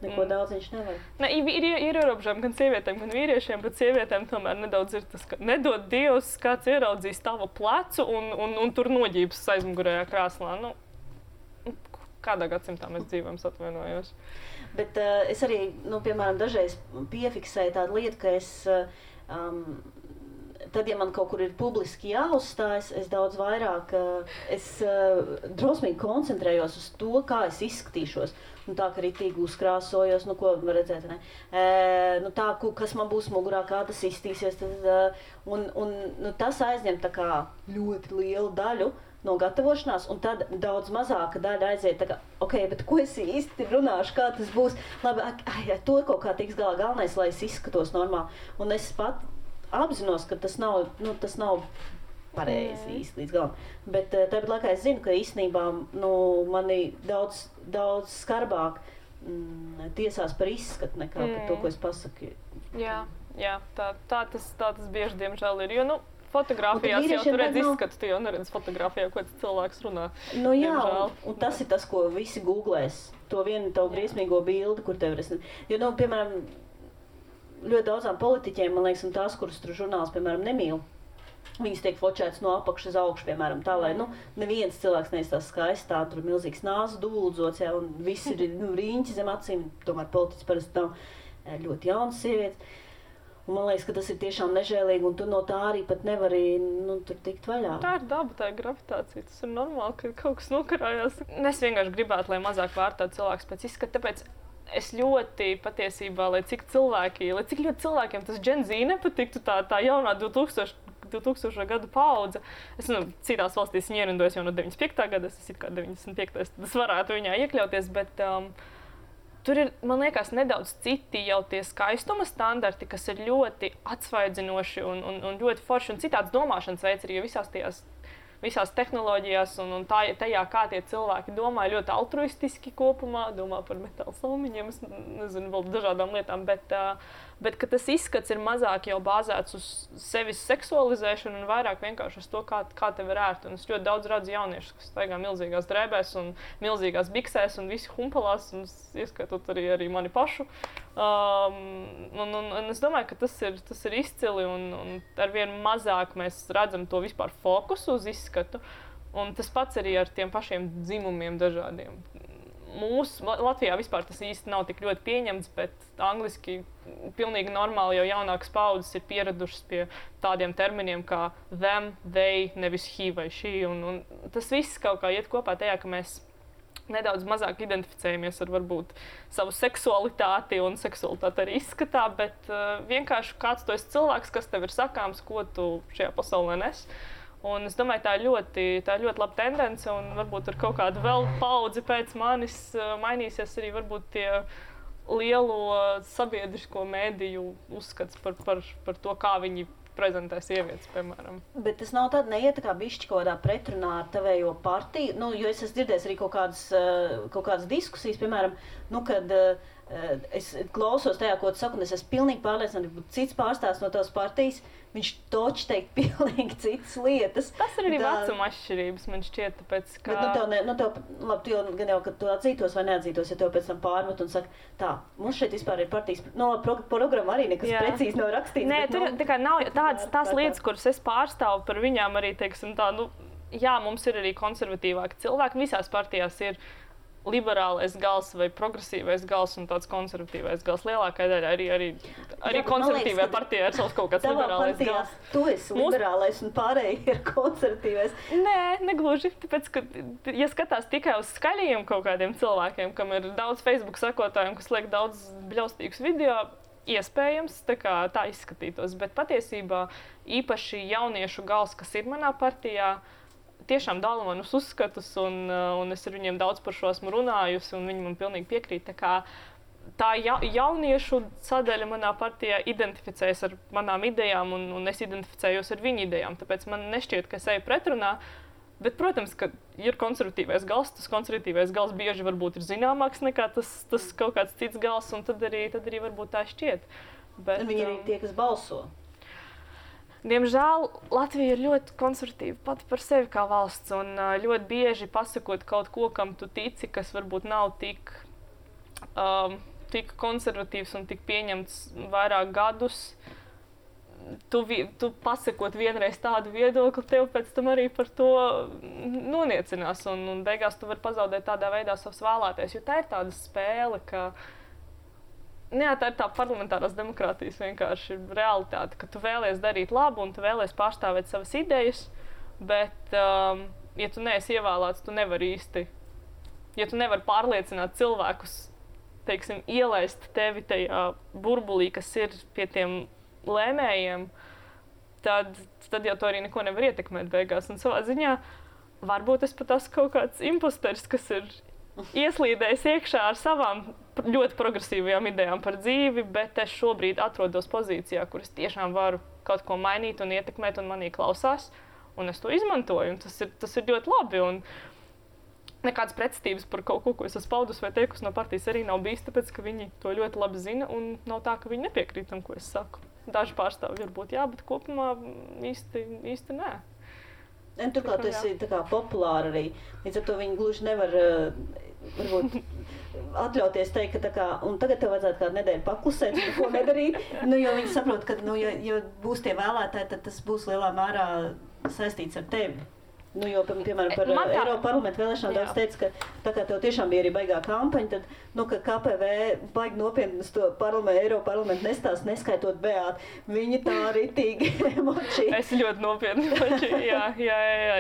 Neko daudz viņš nevar. Ir ierobežojumi gan sievietēm, gan vīriešiem, bet sievietēm tomēr nedaudz ir tas, ka nedod Dievs, kāds ieraudzīs tavu plecu un tur noģības aizmugurējā krāslā. Kādā gadsimtā mēs dzīvojam, atvainojos. Bet es arī, piemēram, dažreiz piefiksēju tādu lietu, ka es tad, ja man kaut kur ir publiski jāuzstājas, es daudz vairāk, drosmīgi koncentrējos uz to, kā es izskatīšos. Nu, tā, ka ritīgi uzkrāsojos, nu, ko var redzēt, ne? Nu, tā, kas man būs mugurā, kā tas izstīsies, un tas aizņem tā kā ļoti lielu daļu no gatavošanās, un tad daudz mazāka daļa aiziet tā kā, ok, bet ko es īsti runāšu, kā tas būs, labi, to kaut kā tiks galā, galvenais, lai es izskatos normāli, un es pat apzinos, ka tas nav pareizi īsti līdz galam, bet tāpat laikā es zinu, ka īstenībā, nu, mani daudz skarbāk tiesās par izskatu nekā par to, ko es pasaku. Jā, tā tas bieži, diemžēl, ir, jo, nu, fotogrāfijās jau tu redz izskatu, tu jau neredz fotogrāfijā, ko tas cilvēks runā. Nu jā, un tas ir tas, ko visi googlēs. To vienu tavu briesmīgo bildi, kur tev ir. Jo, nu, piemēram, ļoti daudzām politiķiem, man liekas, un tās, kuras tur žurnāls, piemēram, nemīl, viņas tiek fočētas no apakšas uz augšu, piemēram, tā, lai, nu, neviens cilvēks neizstās skaisti, tā, tur milzīgs nāzu dūldzots, jā, un visi ir, nu, riņķi zem acīm, tomēr politiķis parasti nav ļoti jaunas sievietes. Un man liekas, ka tas ir tiešām nežēlīgi, un tu no tā arī pat nevari, nu, tur tikt vaļā. Tā ir daba, tā ir gravitācija, tas ir normāli, ka kaut kas nokarājās. Es vienkārši gribētu, lai mazāk vērtētu cilvēks pēc izskata, tāpēc es ļoti patiesībā, lai cik ļoti cilvēkiem tas Gen Z nepatiktu, tā jaunā 2000 gadu paudze. Es citās valstīs viņa ierindojas jau no 95. gada, es kā 95. tad es varētu viņā iekļauties, bet tur ir, man liekas, nedaudz citi jau tie skaistuma standarti, kas ir ļoti atsvaidzinoši un ļoti forši, un citāds domāšanas veids arī, jo visās tehnoloģijās un tajā, kā tie cilvēki domā, ļoti altruistiski kopumā, domā par metāla salmiņiem, es nezinu, vēl dažādām lietām, bet ka tas izskats ir mazāk jau bāzēts uz sevis seksualizēšanu un vairāk vienkārši uz to, kā tev ir ērti. Un es ļoti daudz redzu jauniešus, kas staigā milzīgās drēbēs un milzīgās biksēs un visi humpalās, un ieskaitot arī mani pašu. Un es domāju, ka tas ir izcili un arvien mazāk mēs redzam to vispār fokusu uz izskatu. Un tas pats arī ar tiem pašiem dzimumiem dažādiem. Latvijā vispār tas īsti nav tik ļoti pieņemts, bet angliski pilnīgi normāli jau jaunākas paudzes ir pieradušas pie tādiem terminiem kā them, they, nevis he vai she. Un tas viss kaut kā iet kopā tajā, ka mēs nedaudz mazāk identificējamies ar varbūt savu seksualitāti un seksualitāti arī izskatā, bet vienkārši kāds tu esi cilvēks, kas tev ir sakāms, ko tu šajā pasaulē nes. Un es domāju, tā ir ļoti laba tendence, un varbūt ar kaut kādu vēl paudzi pēc manis mainīsies arī varbūt tie lielo sabiedrisko mēdīju uzskats par to, kā viņi prezentē sievietes, piemēram. Bet tas nav tāda neiet tā kā bišķi kaut kādā pretrunā ar tavējo partiju, nu, jo es esmu dzirdējis arī kaut kādas diskusijas, piemēram, nu, kad es klausos tajā, ko tu saki, un es esmu pilnīgi pārliecināta, ka cits pārstāvs no tavas partijas, viņš toči teikt pilnīgi citas lietas. Tas ir arī vecuma atšķirības, man šķiet, tāpēc, ka... Bet, labi, tu jau, kad tu atzītos vai neatzītos, ja tev pēc tam pārmet un saka, tā, mums šeit vispār ir partijas, programma arī nekas precīzi nav rakstīts. Nē, tur tā kā nav tās lietas, kuras es pārstāvu par viņām arī, teiksim tā, nu, jā, mums ir arī konservatīvāki cilvēki, visās partijās ir liberālais gals vai progresīvais gals un tāds konservatīvais gals. Lielākā daļa arī konservatīvajā partijā ir savs kaut kāds liberālais gals. Tu esi liberālais un pārējie ir konservatīvais. Nē, negluži. Tāpēc, ka, ja skatās tikai uz skaļajiem kaut kādiem cilvēkiem, kam ir daudz Facebook sekotājiem, kas liek daudz bļaustīgus video, iespējams tā izskatītos. Bet patiesībā īpaši jauniešu gals, kas ir manā partijā, tiešām dala manus uzskatus, un es ar viņiem daudz par šo esmu runājusi, un viņi man pilnīgi piekrīt. Tā jauniešu sadaļa manā partijā identificējas ar manām idejām, un es identificējos ar viņu idejām. Tāpēc man nešķiet, ka es eju pretrunā. Bet, protams, ka ir konservatīvais gals, tas konservatīvais gals bieži varbūt ir zināmāks nekā tas kaut kāds cits gals, un tad arī varbūt tā šķiet. Bet, viņi ir tie, kas balso. Diemžēl Latvija ir ļoti konservatīva pati par sevi kā valsts, un ļoti bieži pasakot kaut ko, kam tu tici, kas varbūt nav tik konservatīvs un tik pieņemts vairāk gadus, tu pasakot vienreiz tādu viedokli, tev pēc tam arī par to noniecinās, un beigās tu vari pazaudēt tādā veidā savus vēlētājus, jo tā ir tāda spēle, ka Jā, tā ir tā parlamentārās demokrātijas vienkārši realitāte, ka tu vēlies darīt labu un tu vēlies pārstāvēt savas idejas, bet, ja tu neesi ievēlēts, tu nevari īsti, ja tu nevari pārliecināt cilvēkus, teiksim, ielaist tevi tajā burbulī, kas ir pie tiem lēmējiem, tad jau to arī neko nevar ietekmēt beigās. Un savā ziņā varbūt es pat esmu kaut kāds imposteris, kas ir ieslīdējis iekšā ar savām ļoti progresīvajām idejām par dzīvi, bet es šobrīd atrodos pozīcijā, kur es tiešām varu kaut ko mainīt un ietekmēt, un manī klausās, un es to izmantoju, un tas ir ļoti labi. Un nekādas pretestības par kaut ko es esmu paudus vai teikusi no partijas arī nav bijis, tāpēc, ka viņi to ļoti labi zina, un nav tā, ka viņi nepiekrīt tam, ko es saku. Daži pārstāvji varbūt jā, bet kopumā īsti nē. Turklāt tas ir populāri arī. Līdz ar to viņi gluži nevar varbūt atļauties teikt, ka tā kā, un tagad tev vajadzētu kādu nedēļu paklusēt, neko nedarīt. Jo viņi saprot, ka, ja būs tie vēlētāji, tad tas būs lielā mērā saistīts ar tevi. Jo, piemēram, par Eiropas parlamentu vēlēšanām daudz teica, ka tā kā tev tiešām bija arī baigā kampaņa, tad, ka KPV baigi nopietni uz to Eiropas parlamentu nestāst, neskaitot Beātu. Viņi tā ritīgi emočīgi. Es ļoti nopietni emočīgi,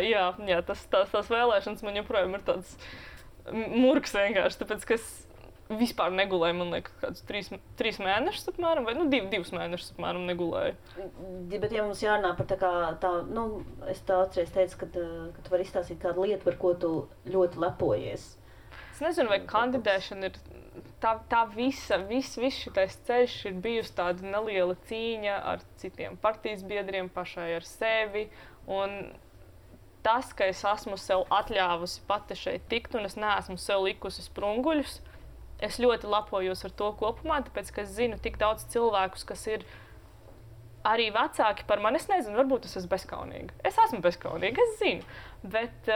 jā. Tās vēlēšanas man joprojām ir tāds murgs vienkārši, tāpēc, ka es vispār negulēju, man liekas, kādus 3 mēnešus apmēram, vai 2 mēnešus apmēram negulēju. Bet ja mums jārunā par es tā atceries teicu, ka tu vari izstāstīt kādu lietu, par ko tu ļoti lepojies. Es nezinu, vai kandidēšana ir tā viss šitais ceļš ir bijusi tāda neliela cīņa ar citiem partijas biedriem, pašai ar sevi, un tas, ka es esmu sev atļāvusi pati šeit tikt, un es neesmu sev likusi sprunguļus, es ļoti lepojos ar to kopumā, tāpēc, ka es zinu tik daudz cilvēkus, kas ir arī vecāki par mani. Es nezinu, varbūt es esmu bezkaunīga. Es esmu bezkaunīga, es zinu. Bet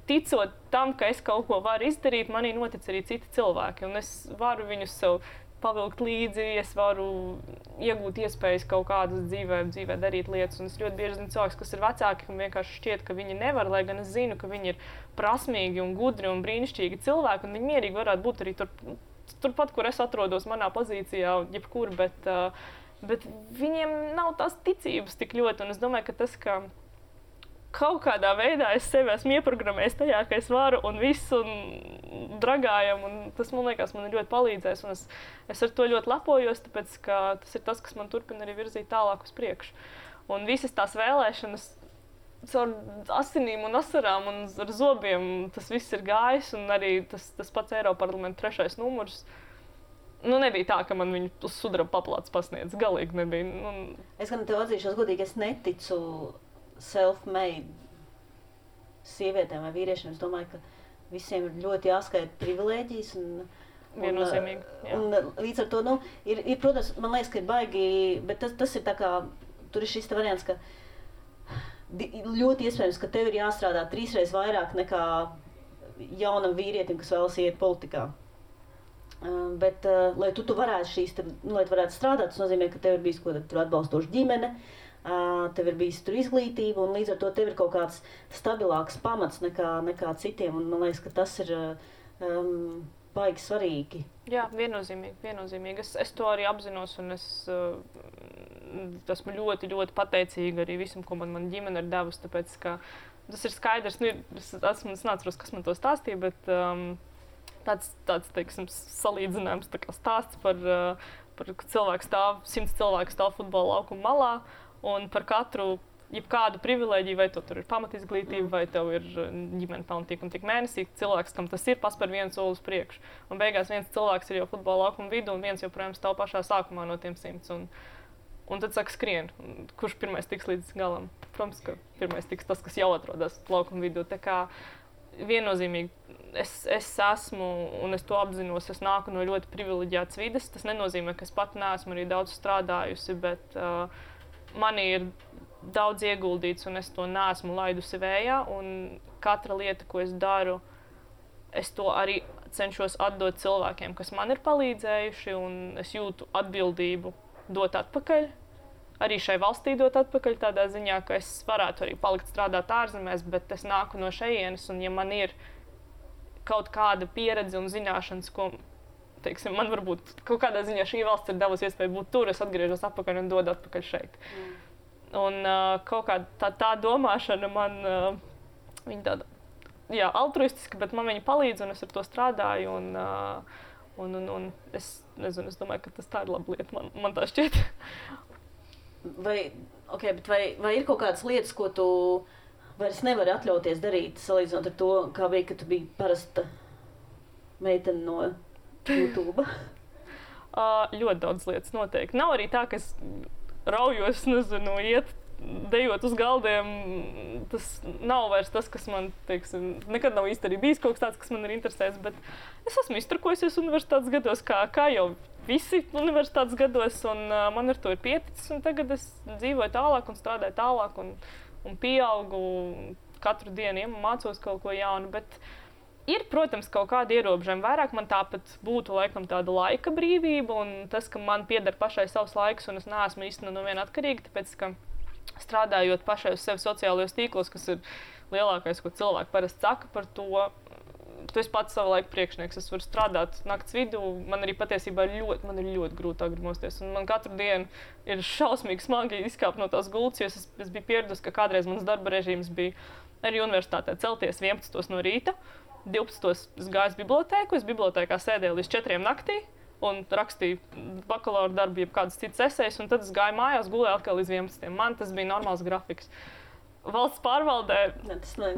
ticot tam, ka es kaut ko varu izdarīt, manī notic arī citi cilvēki. Un es varu viņus sev pavilkt līdzi, es varu iegūt iespējas kaut kādas dzīvē darīt lietas. Un es ļoti bieži zinu cilvēkus, kas ir vecāki, kam vienkārši šķiet, ka viņi nevar, lai gan es zinu, ka viņi ir prasmīgi un gudri un brīnišķīgi cilvēki, un viņi mierīgi varētu būt arī turpat, kur es atrodos manā pozīcijā, jebkur, bet viņiem nav tās ticības tik ļoti. Un es domāju, ka tas, ka kaut kādā veidā es sevi esmu ieprogrammējis tajā, ka es varu un visu un dragājam, un tas, man liekas, man ir ļoti palīdzējis, un es ar to ļoti lepojos, tāpēc, ka tas ir tas, kas man turpina arī virzīt tālāk uz priekšu. Un visas tās vēlēšanas caur asinīm un asarām un ar zobiem, tas viss ir gājis, un arī tas pats Eiroparlamenta 3. numurs. Nebija tā, ka man viņu uz sudraba paplātes pasniedz, galīgi nebija. Es gan tev atzīšos godīgi, es neticu self-made sievietēm vai vīriešiem. Es domāju, ka visiem ir ļoti jāskaita privilēģijas. Viennozīmīgi. Un līdz ar to, ir, protams, man liekas, ka ir baigi, bet tas ir tā kā, tur ir šis variants, ka ļoti iespējams, ka tev ir jāstrādā 3 reizes vairāk nekā jaunam vīrietim, kas vēlas iet politikā. Bet, lai tu varētu lai tu varētu strādāt, tas nozīmē, ka tev ir bijis tur atbalstoša ģimene, tev ir bijis tur izglītība, un līdz ar to tev ir kaut kāds stabilāks pamats nekā citiem, un man liekas, ka tas ir baigi svarīgi. Jā, viennozīmīgi. Es to arī apzinos, un es esmu ļoti, ļoti pateicīga arī visam, ko man ģimene ir devusi, tāpēc, ka tas ir skaidrs, es neatceros, kas man to stāstīja, bet tāds teiksim, salīdzinājums stāsts par cilvēku 100 cilvēku stāv futbola laukuma malā, un par katru jebkādu privilēģiju, vai tur ir pamatizglītība, vai tev ir ģimene pelna tik un tik mēnesī, cilvēks, kam tas ir, paspēr vienu soli uz priekšu. Un beigās viens cilvēks ir jau futbola laukuma vidū, un viens joprojām stāv pašā sākumā no tiem 100. Un tad saka skrien, kurš pirmais tiks līdz galam. Protams, ka pirmais tiks tas, kas jau atrodas laukuma vidū. Tā kā viennozīmīgi es esmu, un es to apzinos, es nāku no ļoti privileģētas vides. Tas nenozīmē, ka es pat neesmu arī daudz strādājusi, bet manī ir daudz ieguldīts, un es to neesmu laidusi vējā. Un katra lieta, ko es daru, es to arī cenšos atdot cilvēkiem, kas man ir palīdzējuši, un es jūtu atbildību dot atpakaļ. Arī šai valstī dot atpakaļ tādā ziņā, ka es varētu arī palikt strādāt ārzemēs, bet es nāku no šejienes, un ja man ir kaut kāda pieredze un zināšanas, ko teiksim, man varbūt kaut kādā ziņā šī valsts ir devusi iespēju būt tur, es atgriežos atpakaļ un dodu atpakaļ šeit. Un kaut kā tā domāšana man, viņa tāda, jā, altruistiska, bet man viņa palīdz un es ar to strādāju un es nezinu, es domāju, ka tā ir laba lieta, man tā šķiet. Vai ir kaut kādas lietas, ko tu vairs nevari atļauties darīt, salīdzinot ar to, kā bija, ka tu biji parasta meitene no YouTube? Ļoti daudz lietas noteikti. Nav arī tā, ka es raujos, nezinu, iet, dejot uz galdiem. Tas nav vairs tas, kas man, teiksim, nekad nav īsti arī bijis kaut kas tāds, kas man ir interesējis, bet es esmu izturkojusies universitātes gados, kā jau visi universitātes gados, un man ar to ir pieticis, un tagad es dzīvoju tālāk un strādāju tālāk un pieaugu katru dienu, mācos kaut ko jaunu, bet ir, protams, kaut kādi ierobežojumi. Vairāk man tāpat būtu laikam tāda laika brīvība un tas, ka man pieder pašai savs laiks un es neesmu īsti no viena atkarīga, tāpēc, ka strādājot pašai uz sevi sociālajos tīklos, kas ir lielākais, ko cilvēki parasti saka par to, tu esi pats savu laiku priekšnieks, es varu strādāt nakts vidū, man arī patiesībā ir ļoti grūti agri mosties, un man katru dienu ir šausmīgi smagi izkāpt no tās gultas, jo es biju pieradusi, ka kādreiz mans darba režīms bija arī universitātē celties 11 no rīta, 12 es gāju uz bibliotēku, es bibliotēkā sēdēju līdz 4 naktī un rakstīju bakalaura darbu, jeb kādas citas esejas, un tad es gāju mājās, gulēju atkal līdz 11. Man tas bija normāls grafiks. Valsts pārvaldē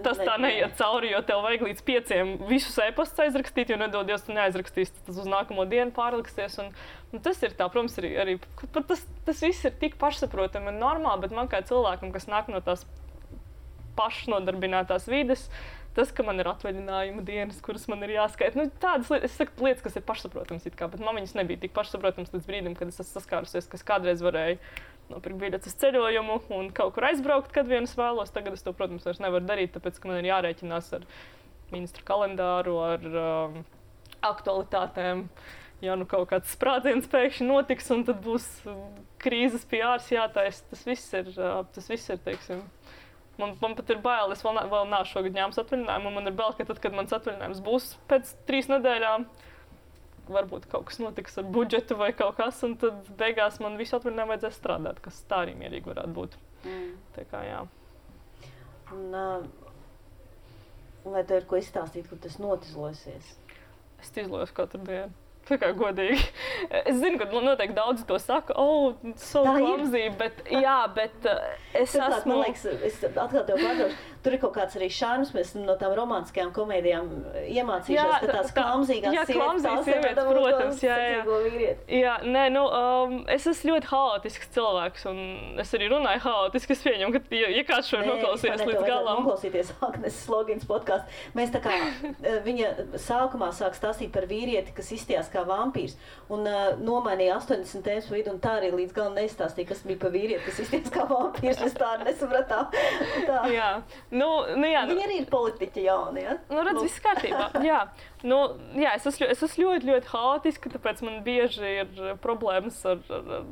tas tā neiet cauri, jo tev vajag līdz 5 visus e-pastus aizrakstīt, jo nedodies, tu neaizrakstīsi, tas uz nākamo dienu pārliksies. Un tas ir tā, protams, arī tas viss ir tik pašsaprotami un normāli, bet man kā cilvēkam, kas nāk no tās pašnodarbinātās vides, tas, ka man ir atvaļinājuma dienas, kuras man ir jāskaita, tādas lietas, es saku lietas, kas ir pašsaprotams it kā, bet man viņas nebija tik pašsaprotams līdz brīdim, kad es esmu saskārusies, ka es kādreiz varēju nopirkt biļetes uz ceļojumu un kaut kur aizbraukt, kad vien es vēlos. Tagad es to, protams, vairs nevaru darīt, tāpēc, ka man ir jārēķinās ar ministra kalendāru, ar aktualitātēm. Ja nu kaut kāds sprādziens pēkšņi notiks un tad būs krīzes PRs jātaisa, tas viss ir, teiksim, Man pat ir bail, es vēl nav šogad ņēmis atvaļinājumu, un man ir bail, ka tad, kad mans atvaļinājums būs pēc 3 nedēļām, varbūt kaut kas notiks ar budžetu vai kaut kas, un tad beigās man visu atvaļinājumu vajadzēs strādāt, kas tā arī mierīgi varētu būt. Tā kā, jā. Un vai tev ir ko izstāstīt, kur tas notizlosies? Es izlojos katru dienu. Tā kā godīgi. Es zinu, ka noteikti daudzi to saka, so clumsy, bet es esmu... Man liekas, es atkal tev pārdošu, tur ir kaut kāds arī šarms, mēs no tām romantiskajām komēdijām iemācījušās, ka tās klamzīgās sievietes, protams, es esmu ļoti haotisks cilvēks, un es arī runāju haotiski, es pieņemu, ka, ja kāds šo noklausījies līdz galam... Noklausīties Agnes Slogins podkāstu. Mēs tā kā, viņa sākumā sāk stāstīt par vīrieti, kas izstījās kā vampīrs, un nomainīja 80 tēmas pa vidu, un tā arī līdz galam neizstāstīja, kas bija pa vīrieti, kas izstījās kā vampīrs, mēs tā nesapratām. Jā. Jā. Viņi arī ir politiķi jauni, ja? Redz, viss kārtībā. Jā. Es esmu ļoti haotiska, tāpēc man bieži ir problēmas ar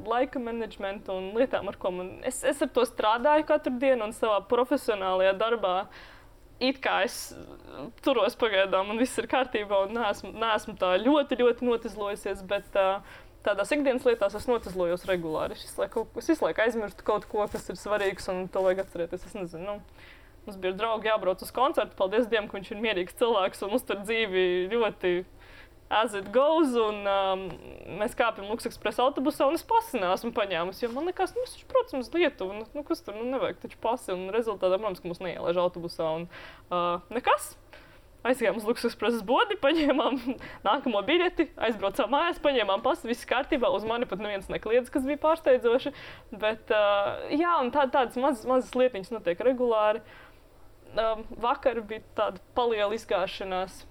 laika menedžmentu un lietām, ar ko es ar to strādāju katru dienu un savā profesionālajā darbā. It kā es turos pagaidām un viss ir kārtībā un neesmu tā ļoti notizlojusies, bet tādās ikdienas lietās es notizlojos regulāri. Es visu laiku aizmirstu kaut ko, kas ir svarīgs un to vajag atcerēties. Es nezinu, mums bija draugi jābrauc uz koncertu, paldies Dievam, ka viņš ir mierīgs cilvēks un uztur dzīvi ļoti as it goes, un mēs kāpjam Luksekspresa autobusā, un es pasi neesmu paņēmusi, jo man likās, es taču braucam uz Lietuvu, kas tur, nevajag taču pasi, un rezultātā, protams, ka mūs neielaiž autobusā, un nekas. Aizgājām uz Luksekspresa bodi, paņēmām nākamo biļeti, aizbraucām mājās, paņēmām pasi, viss kārtībā, uz mani pat neviens nekliedz, kas bija pārsteidzoši, bet, un tādas mazas lietiņas notiek regulāri. Vakar bija tāda paliela izgāšanās.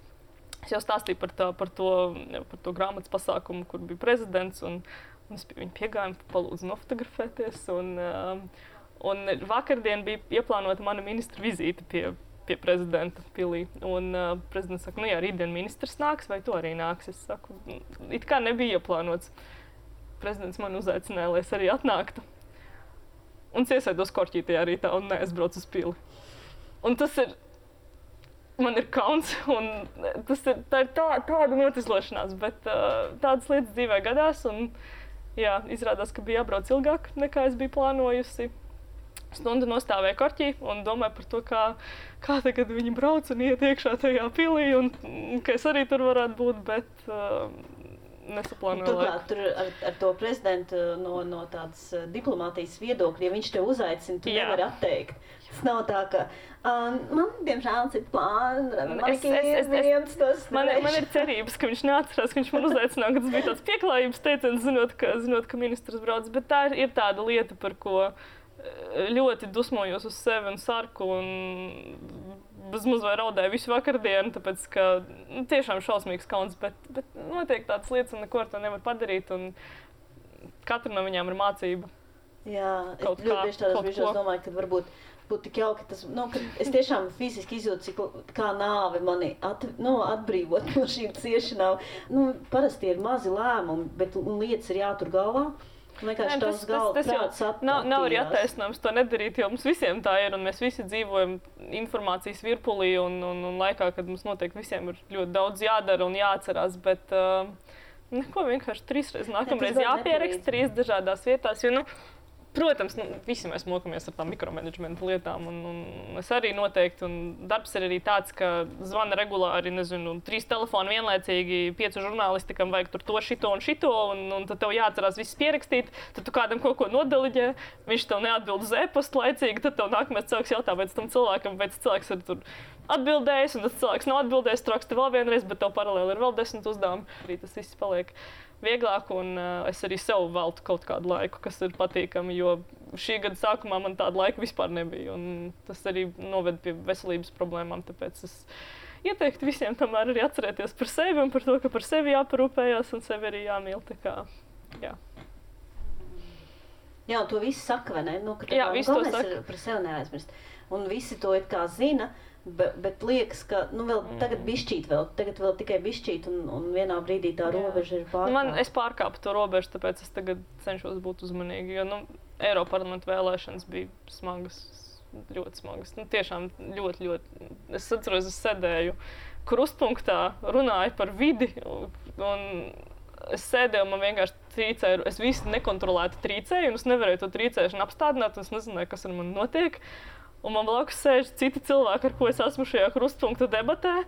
Es jau stāstīju par to grāmatas pasākumu, kur bija prezidents, un es pie viņa piegāju, palūdzu nofotografēties. Un vakardien bija ieplānota mana ministra vizīte pie prezidenta pilī. Un prezidents saka, rītdien ministrs nāks, vai tu arī nāks? Es saku, it kā nebija ieplānots. Prezidents man uzaicināja, lai es arī atnāktu. Un es iesēdos korķītajā rītā un neaizbraucu uz pili. Un tas ir man ir kauns, un tā ir tāda notislošanās, bet tādas lietas dzīvē gadās, un jā, izrādās, ka bija jābrauc ilgāk, nekā es biju plānojusi. Stundu nostāvēju korķī un domāju par to, kā tagad viņi brauc un iet iekšā tajā pilī, un ka es arī tur varētu būt, bet nesaplānoju laiku. Turklāt, tur ar to prezidentu no tādas diplomātijas viedokļa, ja viņš tev uzaicina, tu nevari atteikt. Tas nav tā, ka man, diemžēl, cits plāns, man ir cerības, ka viņš neatcerās, ka viņš man uzaicināja, ka tas bija tāds pieklājības teiciens, zinot, ka ministrs brauc, bet tā ir tāda lieta, par ko ļoti dusmojos uz sevi un sarku un bezmaz vai raudēju visu vakardienu, tāpēc, ka tiešām šausmīgs kauns, bet notiek tādas lietas un neko ar to nevar padarīt, un katra no viņām ir mācība. Jā, es ļoti bieži tādos brīžos domāju, ka varbūt būtu tik jauki, ka es tiešām fiziski izjūtu, kā nāve mani atbrīvot no šīm ciešanām. Parasti ir mazi lēmumi, bet lietas ir jātur galvā. Tas nav arī attaisnojums to nedarīt, jo mums visiem tā ir, un mēs visi dzīvojam informācijas virpulī, un laikā, kad mums noteikti visiem ir ļoti daudz jādara un jāatcerās, bet neko vienkārši 3 reizes nākamreiz jāpieraksta 3 dažādās vietās, jo, protams, visi mēs mokamies ar tām mikromanagementa lietām, un es arī noteikti, un darbs ir arī tāds, ka zvana regulāri, 3 telefoni vienlaicīgi, 5 žurnālistikam vajag tur to, šito un šito, un tad tev jāatcerās viss pierakstīt, tad tu kādam kaut ko nodeliģē, viņš tev neatbild uz e-pastu laicīgi, tad tev nākamais cilvēks jautā, vai tam cilvēkam, vai tas cilvēks ir tur atbildējis, un tas cilvēks nav atbildējis, tu raksti vēl vienreiz, bet tev paralēli ir vēl 10 uzdevumi. Arī tas viss paliek vieglāk, un es arī sev veltu kaut kādu laiku, kas ir patīkami, jo šī gada sākumā man tāda laika vispār nebija, un tas arī noved pie veselības problēmām, tāpēc es ieteiktu visiem tomēr arī atcerēties par sevi un par to, ka par sevi jāparūpējās un sevi arī jāmīl, tā kā, jā. Jā, to visi saka, vai ne? Jā, visi to saka. Par sevi neaizmirst. Un visi to it kā zina, bet liekas, ka vēl tagad bišķīt tagad vēl tikai bišķīt, un vienā brīdī tā robeža ir pārkāpta. Es pārkāpu to robežu, tāpēc es tagad cenšos būt uzmanīgi, jo Eiroparlamenta vēlēšanas bija smagas, ļoti smagas. Tiešām ļoti. Es atceros, es sēdēju krustpunktā, runāju par vidi, un es sēdēju, man vienkārši trīcēju, es visu nekontrolēti trīcēju, un es nevarēju to trīcēšanu apstādināt, un es nezināju, kas ar mani notiek. Un man blakus sēž citi cilvēki, ar ko es esmu šajā krustpunkta debatē,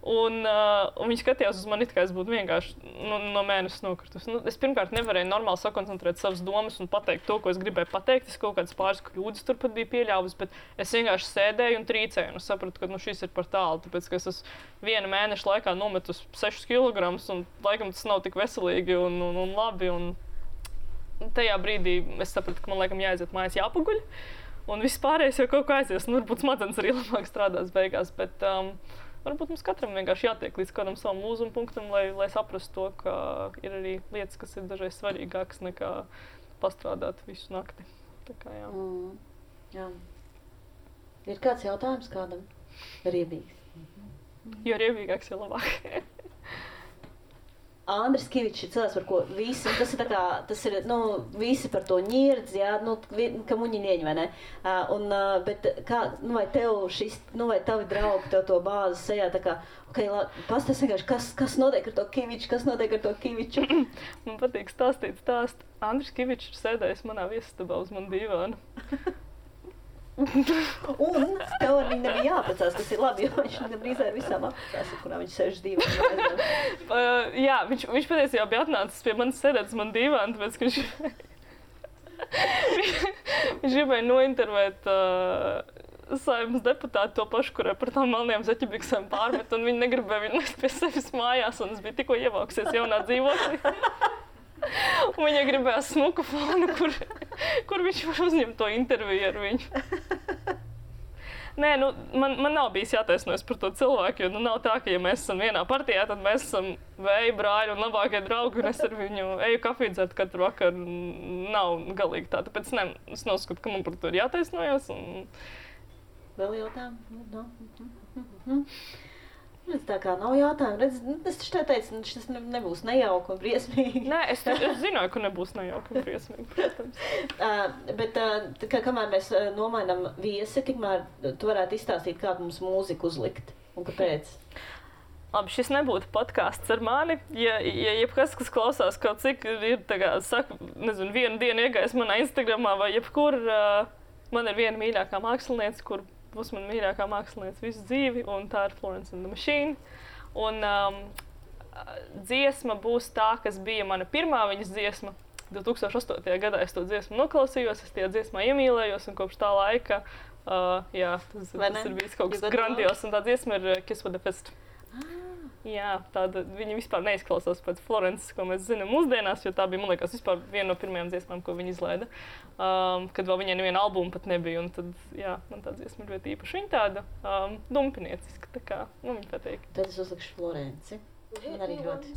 un viņi skatījās uz mani, kā es būtu vienkārši no mēnesis nokritus. Es pirmkārt nevarēju normāli sakoncentrēt savas domas un pateikt to, ko es gribēju pateikt. Es kaut kādas pāris kļūdas turpat biju pieļāvusi, bet es vienkārši sēdēju un trīcēju, un es sapratu, ka šis ir par tālu, tāpēc, ka es esmu 1 mēneša laikā nometus 6 kilogramus, un laikam tas nav tik veselīgi un labi. Un tajā brīdī es sapratu, ka man laikam jāaiziet mājās jāpaguļ. Un viss pārējais jau kaut kā aizies, varbūt smadzenes arī labāk strādās beigās, bet varbūt mums katram vienkārši jātiek līdz kādam savam lūzuma punktam, lai saprastu to, ka ir arī lietas, kas ir dažreiz svarīgākas nekā pastrādāt visu nakti. Tā kā, jā. Jā. Ir kāds jautājums kādam? Riebīgs. Jo riebīgāks, jo labāk. Andris Kivičs ir cilvēks, par ko visi, tas ir visi par to ņirdz, jā, ka muņi ieņem, vai ne? Bet kā, vai tev vai tavi draugi tev to bāzi sejā, tā kā, pastāst vienkārši, kas notiek ar to Kiviču? Man patīk stāstīt stāstu. Andris Kivičs ir sēdējis manā viesistabā uz manu divānu. Un tev ar viņu nebija jāaprecās, tas ir labi, jo viņš gandrīz ar visām aprecās, kurā viņš sēž divānu. Jā, viņš patiesībā bija atnācis pie manis sēdēt uz manu divānu, tāpēc, ka viņš gribēja nointervēt Saeimas deputāti to pašu, kurai par tām melnajām zeķebiksēm pārmet, un viņi negribēja viņu nest pie sevis mājās, un es biju tikko ievākusies jaunā dzīvoklī. Un viņa gribēja smuku fonu, kur viņš var uzņemt to interviju ar viņu. Nē, man nav bijis jātaisnojas par to cilvēku, jo nav tā, ka ja mēs esam vienā partijā, tad mēs esam vēja brāļi un labākie draugi, un es ar viņu eju kafiju dzert katru vakaru. Nav galīgi tā, tāpēc es neuzskatu, ka man par to ir jātaisnojas. Vēl jautājumu? Tā kā nav jautājumu. Es taču teicu, tas nebūs nejauki un briesmīgi. Nē, es zināju, ka nebūs nejauki un briesmīgi, protams. Bet kamēr mēs nomainām viesi, tikmēr tu varētu izstāstīt, kādu mums mūziku uzlikt. Un kāpēc? Labi, šis nebūtu podkāsts ar mani. Ja jebkas, kas klausās kaut cik ir, saka, nezinu, vienu dienu iegājis manā Instagramā vai jebkur, man ir viena mīļākā māksliniece, kur būs mana mīļākā māksliniece visu dzīvi, un tā ir Florence and the Machine. Un dziesma būs tā, kas bija mana pirmā viņas dziesma. 2008. gadā es to dziesmu noklausījos, es tajā dziesmā iemīlējos, un kopš tā laika, tas ir bijis kaut kas grandios, un tā dziesma ir Kiss with the Fist. Jā, viņa vispār neizklausās pēc Florences, ko mēs zinām mūsdienās, jo tā bija, man liekas, vispār viena no pirmajām dziesmām, ko viņa izlaida. Kad vēl viņai neviena albuma pat nebija, un tad, man tā dziesma ir ļoti īpaša. Viņa tāda dumpinieciska, tā kā, viņa patīk. Tad es uzlikšu Florenci. Man arī ļoti.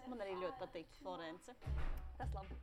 Man arī ļoti patīk Florence. Tas labi.